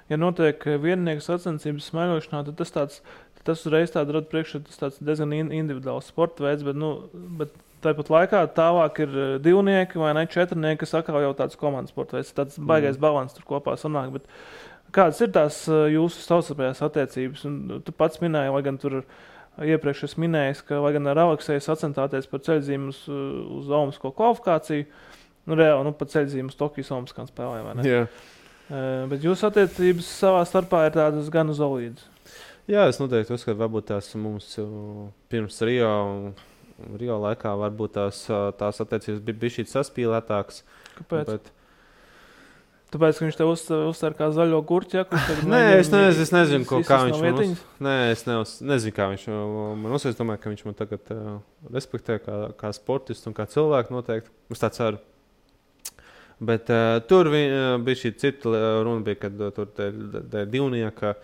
Ja notiek viennieku sacensības smaiļošanā, tad tas uzreiz rada priekšā, tas tāds diezgan individuāls sporta veids, bet tāpat laikā tālāk ir divnieki vai ne četrnieki, kas atkal jau tāds komandas sporta veids, tāds baigais balans tur kopā sanāk, bet kādas ir tās jūsu savstarpējās attiecības? Un tu pats minēji, lai gan tur iepriekš es minēju, ka lai gan ar Alekseju sacentāties par ceļzīmu uz olimpisko kvalifikāciju, reāli pa ceļzīmu uz Tokijas olimpiskām spēlēm, vai ne? Jā. Bet jūsu attiecības savā starpā ir tādas gan solīdas. Jā, es noteikti uzskatu, varbūt tās mums pirms Rio laikā varbūt tās attiecības bija šī saspīlētākas. Kāpēc? Tāpēc, ka viņš te uztver kā zaļo gurķi, Nē, es nezinu, kā viņš man Nē, es nezinu, kā viņš man uzsver. Es domāju, ka viņš man tagad respektē kā sportistu un kā cilvēku noteikti. Es tā ceru. Bet tur bija šī cita runa, kad tur te divnieka,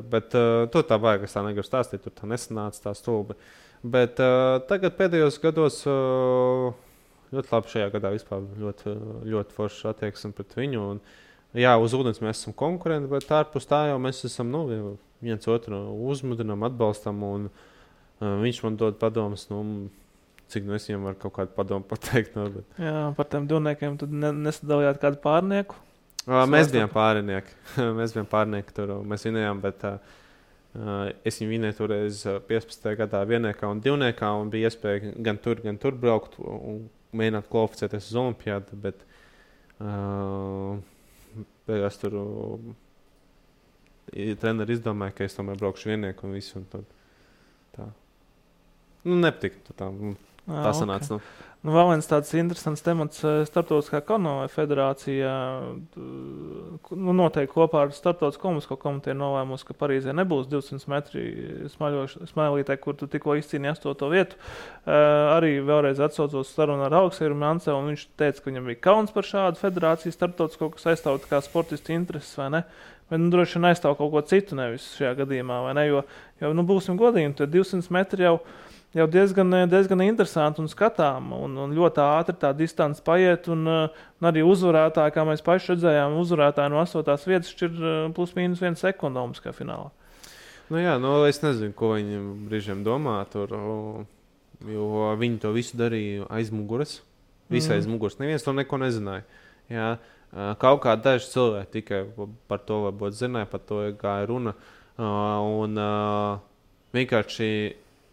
bet tur tā vajag, es tā negribu stāstīt, tur tā nesanāca tā stulbi. Bet tagad pēdējos gados ļoti labi šajā gadā vispār ļoti, ļoti forši attieksme pret viņu. Un, jā, uz ūdens mēs esam konkurenti, bet ārpus tā jau mēs esam viens otru uzmudinām, atbalstam, un viņš man dod padomus, cik es viņam varu kaut kādu padomu pateikt. Bet... Jā, par tiem divniekiem tad nesadalījāt kādu pārnieku? Mēs bijām pārnieki. Mēs bijām pārnieki tur. Mēs vinējām, bet es viņu vinēju toreiz 15. gadā vienniekā un divniekā, un bija iespēja gan tur braukt un mēģināt kvalificēties uz olimpiādu, bet beigās tur treneri izdomāja, ka es tomēr braukšu viennieku un visu. Un tad, tā. Nepatika tā. Tā sanāca. Okay. Vēl viens tāds interesants temats starptautiskā kanoja federācijā. Noteikti kopā ar starptautisko olimpisko komiteju nolēmusi, ka Parīzē nebūs 200 metri smailītē, kur tu tikko izcīnīji 8. vietu. Arī vēlreiz atsaucos sarunu ar Alekseju Rumāncevu, un viņš teica, ka viņam bija kauns par šādu federāciju starptautisko, kas aizstāv kā sportistu intereses, vai ne? Bet droši vien aizstāv kaut ko citu nevis šajā gadījumā, vai ne? Jo būsim godīgi, tad 200 metri jau diezgan interesanti un skatām, un ļoti ātri tā distance paiet, un arī uzvarētāji, kā mēs paši redzējām, uzvarētāji no 8. vietas šķir plus mīnus 1 sekundu olimpiskajā finālā. Jā, es nezinu, ko viņi brīžiem domā tur, jo viņi to visu darīja aiz muguras, aiz muguras. Neviens to neko nezināja. Jā. Kaut kā daži cilvēki tikai par to varbūt zināja, par to gāja runa. Un vienkārši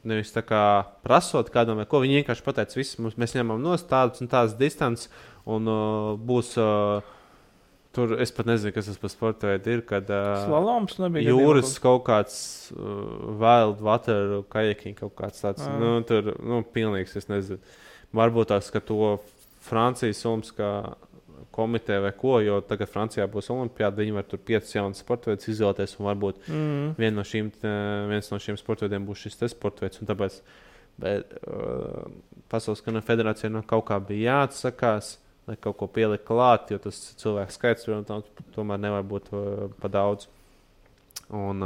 nevis tā kā prasot kādam vai ko, viņi vienkārši pateica, mēs ņemam nost tādas un tādas distances, un būs tur, es pat nezinu, kas tas par sporta veidu ir, kad slaloms nebija jūras kaut kāds wild water kajaking, kaut kāds tāds, tur, pilnīgs, es nezinu. Varbūt tās, ka to Francijas Olimpiskā komiteja vai ko, jo tagad Francijā būs olimpiāda, viņi var tur 5 jaunas sportveidus izvēlēties, un varbūt viens no šiem sportveidiem būs šis te sportveids, un tāpēc Pasaules kanoja federācija kaut kā bija jāatsakās, lai kaut ko pielikt klāt, jo tas cilvēks skaits tomēr nevar būt pa daudz. Un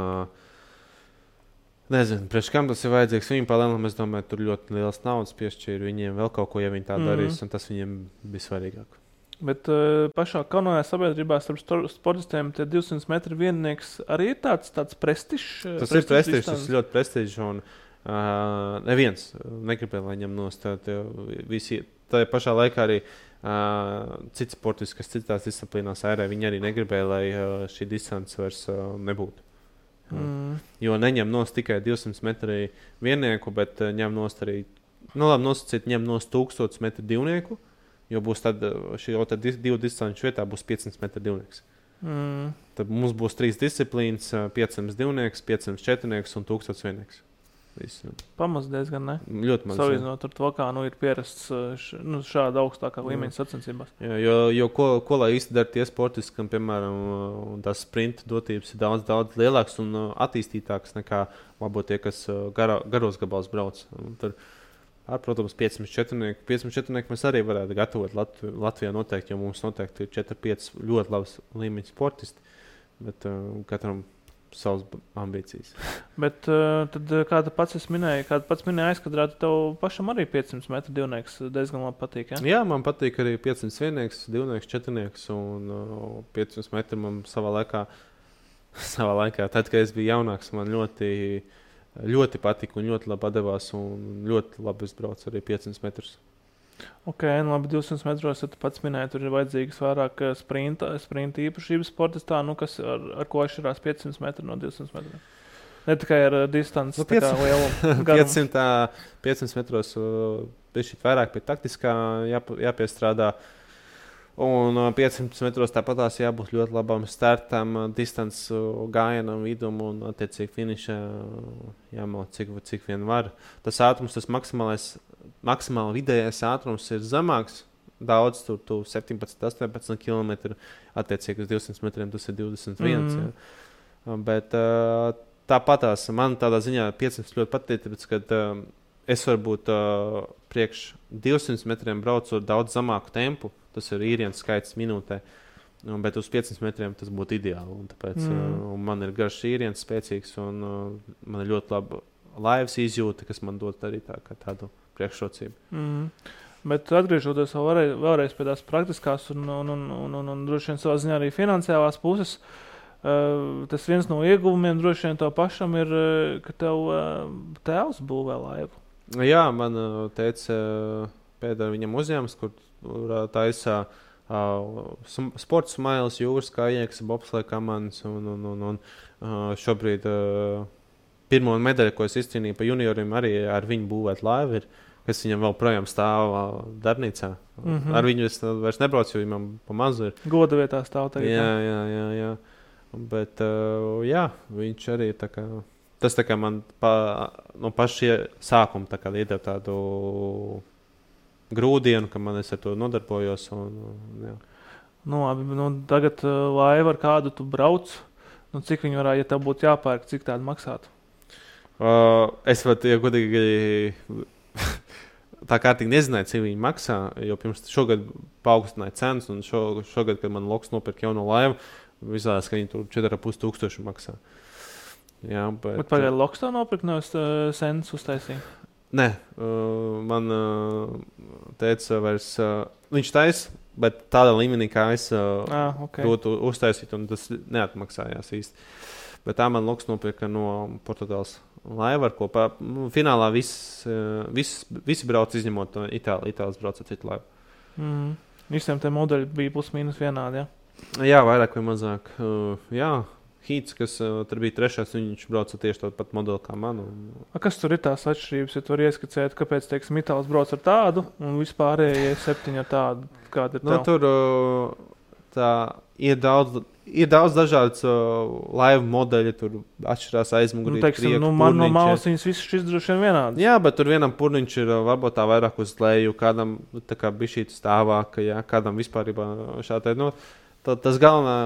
nezinu, priekš kam tas ir vajadzīgs viņiem palēnām, es domāju, tur ļoti liels naudas piešķīra viņiem vēl kaut ko, ja viņi tā darīs, un tas viņiem bija svarīgāk. Bet pašā kanojā sabiedrībā starp sportistiem tie 200 metru viennieks arī ir tāds prestižs. Tas ir prestižs, tas ir ļoti prestižs, un neviens negribēja, lai ņem nost. Tā pašā laikā arī cits sportists, kas citās disciplīnās ērē, viņi arī negribēja, lai šī distance vairs nebūtu. Jo neņem nost tikai 200 metru viennieku, bet ņem nost arī, nosacīt, ņem nost 1000 metru divnieku, jo būs tad šī divu distanču vietā būs 500 metru divnieks. Tad mums būs 3 disciplīnas, 500 divnieks, 500 četrnieks un 1000 viennieks. Pamaz diezgan, ne? Ļoti maz. Salīdzinot ar to, kā ir pierasts šāda augstākā līmeņa sacensībās. Jo ko lai īsti dara tie sportisti, kam, piemēram, tās sprinta dotības ir daudz lielāks un attīstītāks nekā varbūt tie, kas garos gabals brauc. Tur, protams, 500 četrnieku mēs arī varētu gatavot Latvijā noteikti, jo mums noteikti ir 4-5 ļoti labs līmeņa sportisti, bet katram savas ambīcijas. Bet tad, kā tu pats minēji aizkadrā, tev pašam arī 500 metru divnieks diezgan labi patīk, ja? Jā, man patīk arī 500 viennieks, divnieks, četrnieks un 500 metru man savā laikā, tad, kad es biju jaunāks, man ļoti patika un ļoti labi atdevās un ļoti labi izbraucu arī 500 metrus. Ok, labi, 200 metros, ja tu pats minēji, tur ir vajadzīgas vairāk sprinta īpašības sportistā, kas ar ko atšķirās 500 metru no 200 metriem. Ne tikai ar distanci, tā kā lielumu garumu. 500 metros bišķīt vairāk pie taktiskā jāpiestrādā. Un 500 metros tāpatās jābūt ļoti labam startam, distance gājienam, vidum un attiecīgi finišā jāmauc cik vien var. Tas ātrums, tas maksimāli vidējais ātrums ir zemāks. Daudz tur 17-18 km, attiecīgi uz 200 metriem tas ir 21. Ja. Bet tāpatās man tādā ziņā 500 ļoti patīk, tāpēc, kad es varbūt priekš 200 metriem braucu ar daudz zemāku tempu. Tas ir īrienas skaits minūtē, bet uz 500 metriem tas būtu ideāli. Un tāpēc un man ir garš īrienas spēcīgs un man ir ļoti laba laivas izjūta, kas man dod arī tādu priekšrocību. Bet atgriežoties vēlreiz pie tās praktiskās un droši vien savā ziņā arī finansiālās puses, tas viens no ieguvumiem droši vien tev pašam ir, ka tev tēvs būvē laivu. Jā, man teica pēdējā viņam uzņēmums, kur taisā sports smailes, jūras kājiekas, bobslēja komandas un šobrīd pirmo medaļu, ko es izcīnīju pa junioriem, arī ar viņu būvēt laivu ir, kas viņam vēl projām stāv darbnīcā. Ar viņu es vairs nebraucu, jo viņam pa mazu ir. Goda vietā stāv tagad. Jā. Bet jā, viņš arī tā kā, tas tā kā man no paša sākuma tā kā iedeva tādu grūdienu, ka man es ar to nodarbojos. Jā. Tagad laiva ar kādu tu brauc, cik viņi varētu, ja tev būtu jāpērk, cik tādu maksātu? Es pat, ja godīgi, tā kārtīgi nezināju, cik viņi maksā, jo pirms šogad paaugstināja cenas, un šogad, kad man Loks nopirka jauno laivu, izlādās, ka viņi tur 4500 maksā. Jā, bet pagaid Loks tā nopirka, nevis Sens uztaisīja? Nē, man teica vairs, viņš taisa, bet tādā līmenī, kā es būtu uztaisīt, un tas neatmaksājās īsti. Bet tā man Loks nopirka no Portugāles laiva, ar ko finālā visi brauc izņemot Itālijas brauc ar citu laivu. Visiem tie modeļi bija plus-mínus vienādi, ja? Jā, vairāk vai mazāk. Hīts, kas tur bija trešais, viņš brauca tieši tādu pat modeli kā man. Kas tur ir tās atšķirības, ja tu vari ieskicēt, kāpēc, teiksim, Itālis brauc ar tādu un vispārējie 7 ar tādu? Kāda ir tev? Tur ir daudz dažādas laivu modeļi, tur atšķirās aizmugurīt, teiksim, man no malas viņas visas šis droši vien vienādas. Jā, bet tur vienam purniņš ir varbūt tā vairāk uz leju, kādam tā kā bišķīt stāvāka, jā, kādam vispārībā šādi. Tas galvenā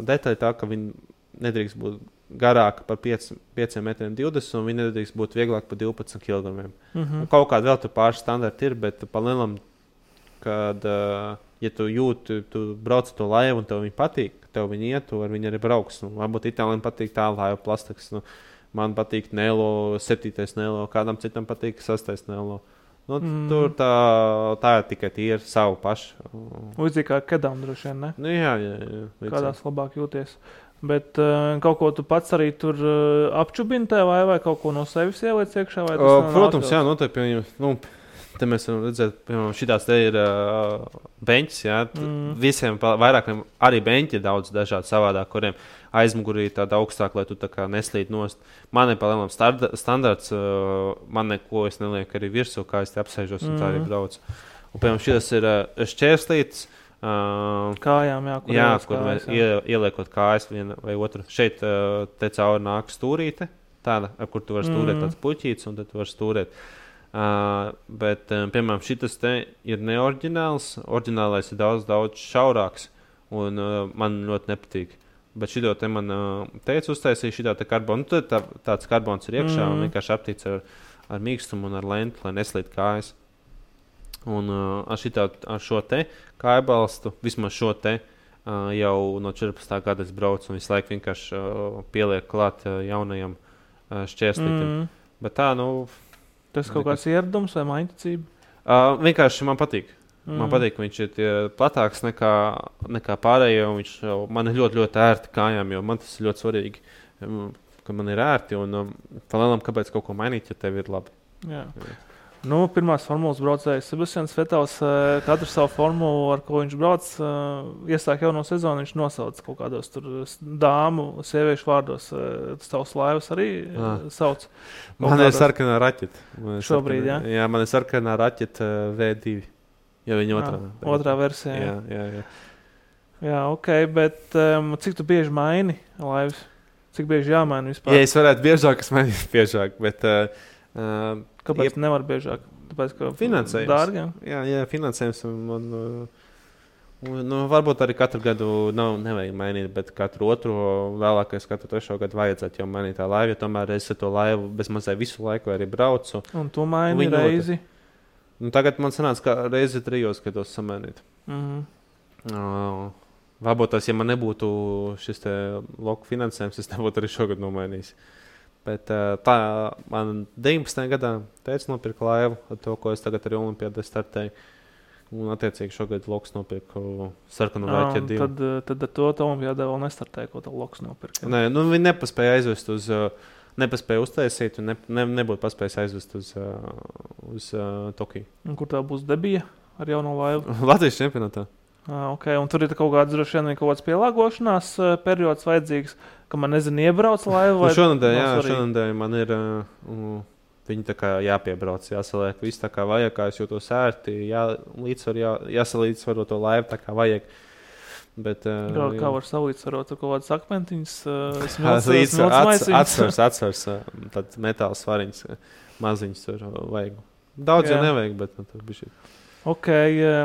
detaļa tā, ka viņi nedrīkst būt garāka par 5,20 metriem un viņi nedrīkst būt vieglāk par 12 kg. Kaut kāda vēl tur pāris standarti ir, bet pa lielam, kad, ja tu jūti, tu brauc to laivu un tev viņi patīk, tev viņi iet, tu ar viņi arī brauks. Varbūt Itālijam patīk tā laiva plastikas. Man patīk Nelo, 7. Nelo, kādam citam patīk 6. Nelo. Tur tā ir tikai tīri savu pašu. Līdzīgi kā kedām droši vien, ne? Jā. Kādās labāk jūties. Bet kaut ko tu pats arī tur apčubini tev vai kaut ko no sevis ieliec iekšā? Protams, jā, noteikti. Te mēs varam redzēt, piemēram, šitās te ir beņķis, jā. Visiem vairāk arī beņķi ir daudz dažādi savādāk, kuriem aizmugurī tāda augstāk, lai tu tā kā neslīd nost. Man ir palielam standarts, man neko es nelieku arī virsū, kā es te apsēžos un tā arī braucu. Un, piemēram, šitas ir šķērslītes. Kājām, jā, kur mēs ieliekot kājas viena vai otru. Šeit te cauri nāk stūrīte, tāda, ar kur tu vari stūrēt tāds puķīts, un tad tu vari stūrēt. Bet, piemēram, šitas te ir neoriģināls. Oriģinālais ir daudz šaurāks, un man ļoti nepatīk. Bet šito te man teica uztaisīja šitā te karbonu. Tad tāds karbons ir iekšā un vienkārši aptīts ar mīkstumu un ar lentu, lai neslīd kājas. Un ar šo te kājbalstu, vismaz šo te, jau no 14. gada es braucu un visu laiku vienkārši pieliek klāt jaunajam šķērslītim. Bet tā, tas kaut kāds ieradums vai maiņticība? Vienkārši man patīk. Man patīk, ka viņš ir platāks nekā pārējie. Viņš man ir ļoti, ļoti ērti kājām, jo man tas ir ļoti svarīgi, ka man ir ērti. Un palielam, kāpēc kaut ko mainīt, ja tev ir labi. Jā. Pirmās formulas braucējs Sebastians Vettels, katru savu formulu, ar ko viņš brauc, iesāk jau no sezonu, viņš nosauc kaut kādos tur dāmu, sieviešu vārdos. Tavs laivas arī sauc. Man ir sarkanā raķete. Šobrīd, jā? Jā, man ir sarkanā raķete V2. Ja viņa otrā versija. Jā. Jā, ok, bet cik tu bieži maini laivas? Cik bieži jāmaina vispār? Ja es varētu biežāk, es mainītu biežāk, bet... Kāpēc nevar biežāk? Tāpēc, ka finansējums. Dārgi? Jā, finansējums. Varbūt arī katru gadu nevajag mainīt, bet katru otro, vēlākais katru 3. gadu vajadzētu jau mainīt tā laivu, jo tomēr es to laivu bezmazai visu laiku arī braucu. Un tu maini reizi? Tagad man sanāca, ka reizi 3 gados samainīt. Varbūt tas, ja man nebūtu šis te loku finansējums, es nebūtu arī šogad nomainījis. Bet tā man 19. gadā teica nopirka laivu ar to, ko es tagad arī Olimpiādē startēju. Un attiecīgi šogad loks nopirka sarkanu raķeti 2. Tad ar to Olimpiādē vēl nestartēja, ko tev loks nopirka. Nē, viņi nepaspēja aizvest nepaspēja uztaisīt un nebūtu paspējis aizvest uz Tokiju. Un kur tā būs debija ar jauno laivu? Latvijas čempionātā. Okay. Un tur ir kaut kāds pielāgošanās periods vajadzīgs, ka man iebrauc laivu? Šonadēļ man ir viņi tā kā jāpiebrauc, jāsaliek viss tā kā vajag, kā es jūtos ērti, jāsalīdzvaro to laivu tā kā vajag. Bet, kā var salīdzvarot, kaut kādas akmentiņas, atsvars, tad metāla svariņas, maziņas tur vajag. Daudz jau nevajag, bet tur bija šī. Ok,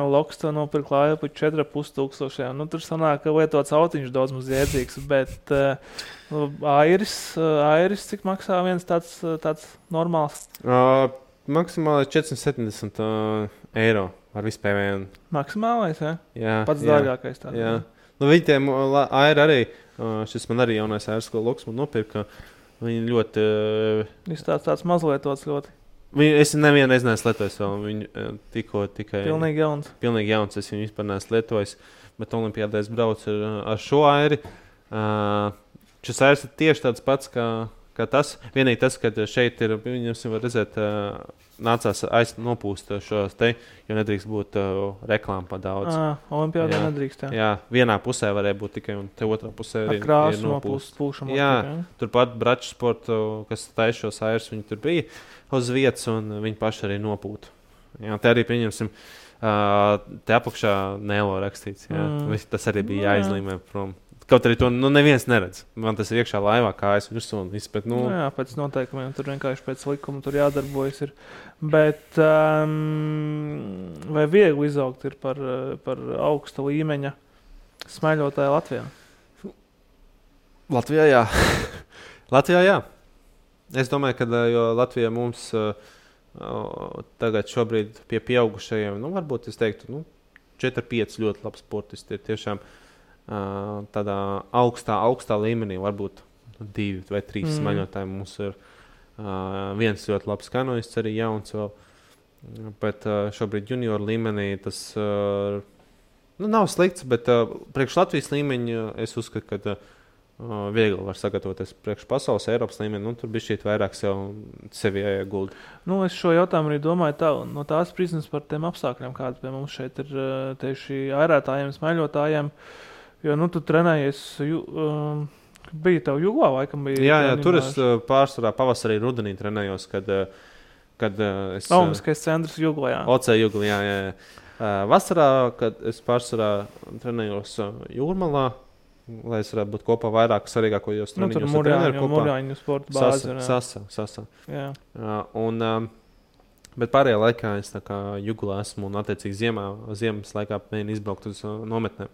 loks to nopirkt laivu par 4,500. Tur sanāk, ka lietots autiņš daudz maz jēdzīgs, bet airis, cik maksā viens tāds normāls? Maksimāli 470 eiro ar vispēvēju. Maksimālais, ja? Jā. Pats dārgākais tāds. Jā. Viņi tiem airi arī, šis man arī jaunais airis, ko loks man nopirka, viņi ļoti... Viņš tāds mazlietots ļoti. Es nevienu reizi neesmu lietojis vēl. Viņu tikai... Pilnīgi jauns. Es viņu vispār neesmu lietojis. Bet Olimpiādē es braucu ar šo airi. Šis airs ir tieši tāds pats, kā ka tas, vienīgi tas, ka šeit ir, viņus var redzēt, nācās nopūst šos te, jo nedrīkst būt reklāma pa daudz. Olimpiādā nedrīkst, jā. Jā, vienā pusē varēja būt tikai, un te otrā pusē ir nopūst. Jā, turpat Braču sportu, kas taisa šos airs, viņi tur bija uz vietas, un viņi paši arī nopūtu. Jā, te arī pieņemsim, te apakšā Nelo rakstīts, jā. Tas arī bija jāizlīmē prom. Kaut arī to neviens neredz. Man tas ir iekšā laivā, kājas virsū un viss. Bet, jā, pēc noteikumiem. Tur vienkārši pēc likuma tur jādarbojas. Ir. Bet vai viegli izaugt ir par augsta līmeņa smēļotāju Latvijā? Latvijā, jā. Latvijā, jā. Es domāju, ka jo Latvijā mums tagad šobrīd pie pieaugušajiem, varbūt es teiktu, 4-5 ļoti labs sportisti ir tiešām tādā augstā līmenī, varbūt 2 vai 3 smaļotāji. Mums ir viens ļoti labs kanoists, arī jauns vēl, bet šobrīd junioru līmenī tas nav slikts, bet priekš Latvijas līmeņa es uzskatu, ka viegli var sagatavoties priekš pasaules, Eiropas līmeni, tur bija šķiet vairāk sevi jāiegulda. Es šo jautājumu arī domāju no tās prizmas par tiem apstākļiem, kāda pie mums šeit ir tieši airētājiem, smaļotājiem. Jo, tu trenējies, bija tev Juglā, laikam bija? Jā, tur es pārsvarā pavasarī rudenī trenējos, kad es... Olimpiskais centrs Juglā, jā. OC Juglā, jā. Vasarā, kad es pārsvarā trenējos Jūrmalā, lai es varētu būt kopā vairāk svarīgākajos treniņos. Tur Murjāņu sporta bāzi. Sasa. Jā. Bet pārējā laikā es tā kā Juglā esmu un attiecīgi ziemas laikā mēģinu izbraukt uz nometnēm.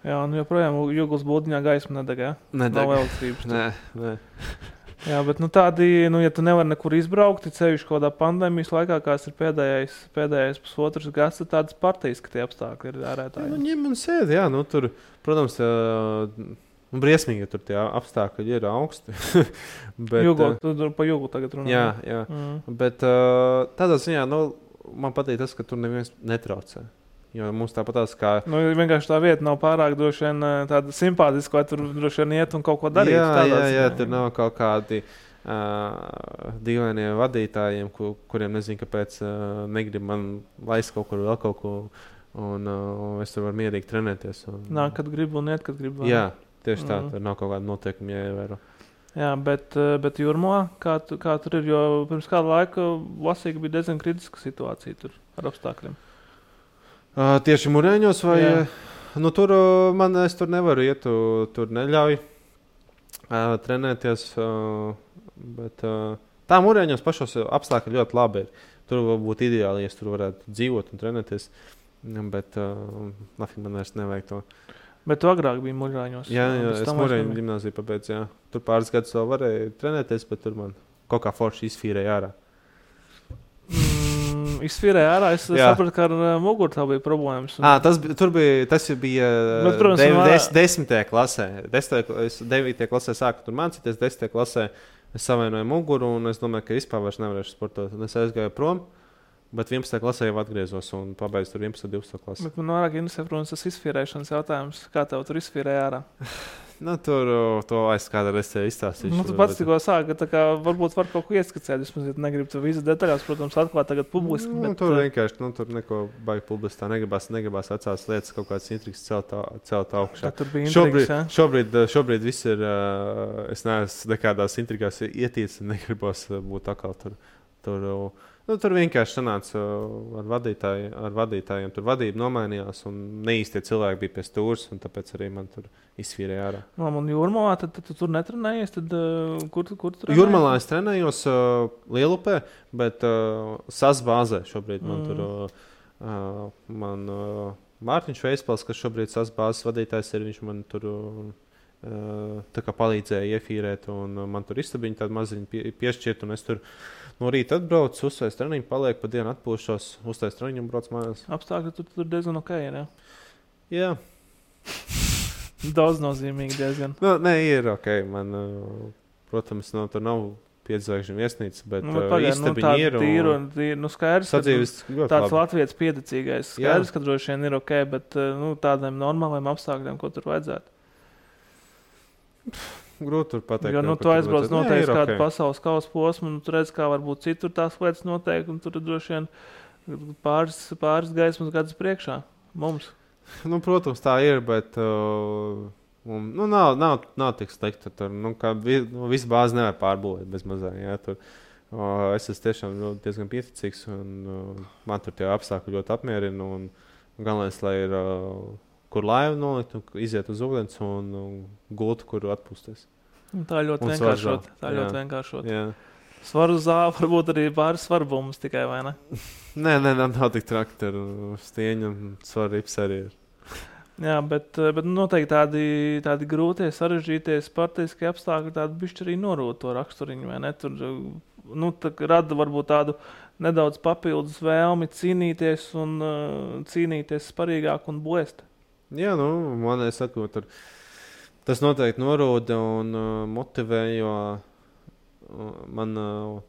Jā, joprojām Juglas būdiņā gaisma nedeg, jā? Nedeg. Nav elektrības. Nē. Jā, bet tādi, ja tu nevari nekur izbraukt, ceļš kādā pandēmijas laikā, kāds ir pēdējais pusotrs gads, tad tādas partijiski apstākļi ir ārētāji. Ņem un sēd, jā, tur, protams, briesmīgi, ja tur tie apstākļi ir augsti. Bet, tu pa Juglu tagad runā. Jā. Bet tādā ziņā, man patīk tas, ka tur neviens netraucē. Jo mums tāpat tās kā... vienkārši tā vieta nav pārāk droši vien tāda simpātiska, vai tur droši vien iet un kaut ko darīt. Jā, tur nav kaut kādi dīvainie vadītājiem, kuriem nezinu, kāpēc negrib man laist kaut kur vēl kaut ko, un es tur varu mierīgi trenēties. Nāk, kad gribu un iet, kad gribu. Jā, tieši tā, tur nav kaut kāda noteikuma jāievēro. Jā, bet Jūrmalā, kā tur ir, jo pirms kāda laika lasīja, ka bija diezgan kritiska situācija tur ar apstākļiem. Tieši Murjāņos vai? Jā. Tur es tur nevaru iet, tur neļauj trenēties, bet tā Murjāņos pašos apstākļi ļoti labi ir. Tur būtu ideāli, ja tur varētu dzīvot un trenēties, bet nafīgi man vairs nevajag to. Bet tu agrāk biji Murjāņos? Jā, es Murjāņu gimnāziju pabeidzu, jā. Tur pāris gadus vēl varēja trenēties, bet tur man kaut kā forši izfīrēja ārā. Izsvīrēja ārā, es sapratu, ka ar muguru tā bija problēmas. Tas bija bet, protams, 10. klasē. 9. klasē sāku tur mācīties, 10. klasē es savainoju muguru, un es domāju, ka vispār vairs nevarēšu sportot. Un es aizgāju prom, bet 11. klasē jau atgriezos un pabeidzu tur 11. 12. klasē. Bet man vairāk interesē, protams, tas izsvīrēšanas jautājums. Kā tev tur izsvīrēja ārā? Tur to aiz kādā reizē izstāstīšu. Tu pats tikko sāki, ka varbūt var kaut ko ieskicēt. Vismaz, ja negribu tu visu detaļās, protams, atklāt tagad publiski. Bet... Tur vienkārši, tur neko baigi publiski tā negribās vecās lietas, kaut kādas intrigas celt augšā. Tur bija intrigas, šobrīd viss ir, es neesmu nekādās intrigās ietīts, negribos būt atkal tur. Tur vienkārši sanāca ar vadītājiem. Tur vadība nomainījās un neīstie cilvēki bija pie stūres, un tāpēc arī man tur izsvīrēja ārā. Un Jūrmalā, tad tu tur netrenējies? Tad, kur tu trenējies? Jūrmalā es trenējos Lielupē, bet SAS bāzē šobrīd man tur Mārtiņš Veispals, kas šobrīd SAS bāzes vadītājs ir, viņš man tur tā kā palīdzēja iefīrēt, un man tur istabiņu tādu maziņu piešķirt, un es tur no rīta atbraucu, uzstājas treniņu, paliek pa dienu atpūšos, uzstājas treniņu un brauc mājās. Apstākļi tur diezgan ok, ne? Jā. Daudz nozīmīgi diezgan. Nē, ir ok. Man, protams, tur nav 5 zvaigžņu viesnīca, bet istabiņi ir. Tīru, skaidrs, tāds latvietis piedecīgais. Skaidrs, ka droši vien ir ok, bet tādiem normāliem apstākļiem, ko tur vajadzētu? grūti tur pateikt. Jo, tu aizbrauc noteikti kādu pasaules kausa posmu, un tu redz, kā varbūt citur tās lietas notiek, un tur droši vien pāris gaismas gadus priekšā mums. Protams, tā ir, bet nav tik slikti. Tur, visu bāzi nevar pārbūvēt bez mazā. Jā, tur. Es esmu tiešām diezgan pieticīgs, un man tur tie apstākļi ļoti apmierina. Galvenais, lai ir kur laivu nolikt, iziet uz ūdens un gultu, kur atpūsties. Tā ļoti vienkāršot. Svaru zāle varbūt arī pāris svarbumus tikai, vai ne? Nē, nav tik traki. Tur stieņa un svaru rips arī ir. Jā, bet noteikti tādi grūtie, sarežģītie sportiskie apstākļi tādi bišķi arī norūda to raksturiņu, vai ne? Tur rada varbūt tādu nedaudz papildus vēlmi cīnīties sparīgāk un blēst. Jā, man saku, tas noteikti norūda un motivē, jo man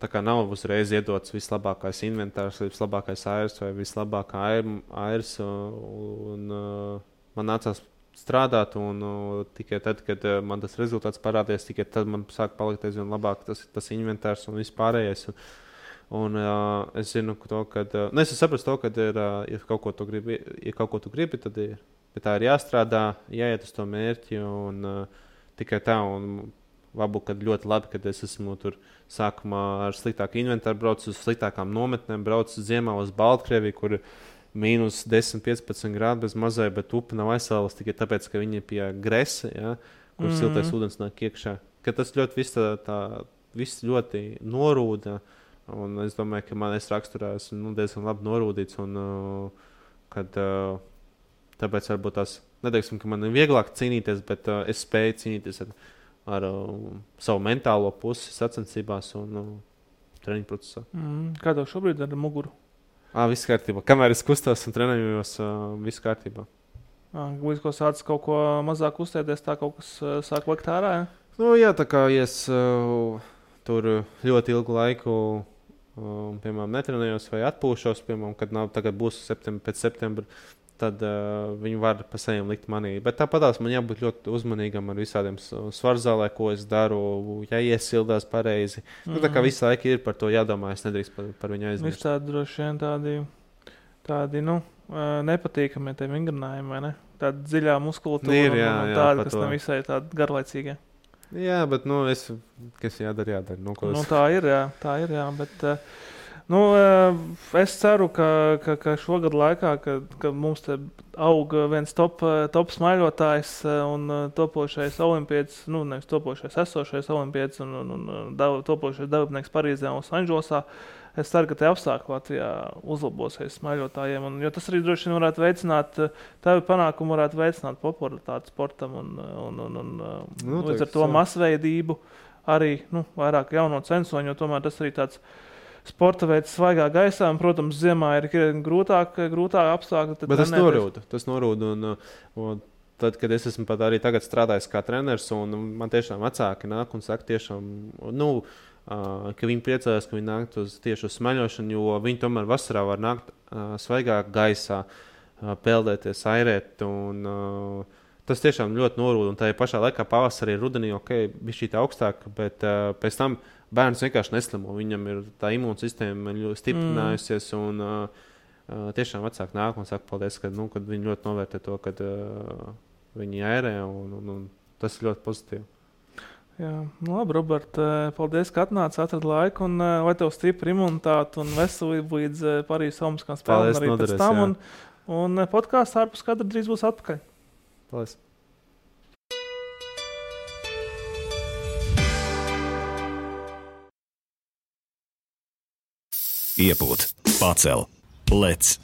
tā kā nav uzreiz iedots vislabākais inventārs, vislabākais airs vai vislabākā airs, un man nācās strādāt, un tikai tad, kad man tas rezultāts parādījās, tikai tad man sāk palikt aizvien labāk tas inventārs un viss pārējais. Un es zinu to, ka es saprotu to, ka ja kaut ko tu gribi, tad pie tā ir jāstrādā, jāiet uz to mērķi, un tikai tā, un varbūt, kad ļoti labi, kad es esmu tur sākumā ar sliktāku inventāru braucu, uz sliktākām nometnēm braucu ziemā uz Baltkrieviju, kur mīnus 10-15 grādi bez mazai, bet upe nav aizsālas tikai tāpēc, ka viņi ir pie gresa, ja, kur siltais ūdens nāk iekšā. Ka tas ļoti viss ļoti norūda, un es domāju, ka man raksturā esmu diezgan labi norūdīts, un kad tāpēc varbūt tās, neteiksim, ka man ir vieglāk cīnīties, bet es spēju cīnīties ar savu mentālo pusi sacensībās un treniņu procesā. Kā tev šobrīd ar muguru? Viss kārtībā. Kamēr es kustos un trenējos, viss kārtībā. Līdz ko sācis kaut ko mazāk kustēties, tā kaut kas sāk likt ārā, ja? Jā, tā kā es tur ļoti ilgu laiku, piemēram, netrenējos vai atpūšos, piemēram, kad tagad būs pēc septembra, tad viņi var pa saviem likt manī. Bet tāpatās man jābūt ļoti uzmanīgam ar visādiem svarzālē, ko es daru, jāiesildās pareizi. Tā kā visu laiku ir par to jādomā, es nedrīkst par viņu aizmirst. Viss tādi droši vien tādi nepatīkami tie vingrinājumi, vai ne? Tāda dziļā muskultūra un tāda, kas nav visai tāda garlaicīga. Jā, bet, kas jādara. Tā ir, bet... es ceru, ka šogad laikā, ka mums te aug viens top smaiļotājs un topošais olimpietis, nevis topošais esošais olimpietis un topošais dalībnieks Parīzē un Losandželosā. Es ceru, ka tie apstākļi Latvijā uzlabosies smaiļotājiem, jo tas arī droši vien varētu veicināt, tavi panākumi varētu veicināt popularitāti sportam un līdz ar to masveidību arī vairāk jauno censoņu, jo tomēr tas arī tāds sporta veids svaigā gaisā, un, protams, ziemā ir grūtāk apstākļi. Bet tas norūda, un tad, kad es esmu pat arī tagad strādājis kā treneris, un man tiešām vecāki nāk un saka tiešām, ka viņi priecājas, ka viņi nāk tieši uz smaļošanu, jo viņi tomēr vasarā var nākt svaigā gaisā, peldēties, airēt, un tas tiešām ļoti norūda, un tā pašā laikā pavasarī, rudenī, bija šī tā augstāk, bet pēc tam bērns vienkārši neslimo. Viņam ir tā imūnsistēma ļoti stiprinājusies, un tiešām vecāki nāk un saka paldies, kad viņi ļoti novērtē to, kad viņi airē, un tas ir ļoti pozitīvi. Jā, labi, Robert, paldies, ka atnāci, atradi laiku, un lai tev stipri imunitāte un veselība līdz Parīzes Olimpiskajām spēlēm arī pēc tam, un podkāsts ārpus kadra drīz būs atpakaļ. Paldies. Iepūt, pacel, lec,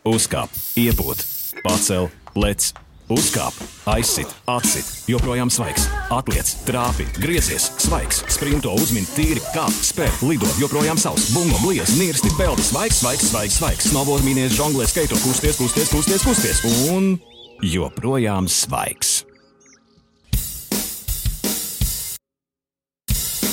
uzkāp, iepūt, pacel, lec, uzkāp, aizsit, atsit, joprojām svaigs, atliec, trāpi, griezies, svaigs, sprinto, uzmin, tīri, kāp, spēr, lido, joprojām savs, bungo, bliez, nirsti, peldi, svaigs, snowboard, mīnies, žonglē, skaito, kusties, un joprojām svaigs.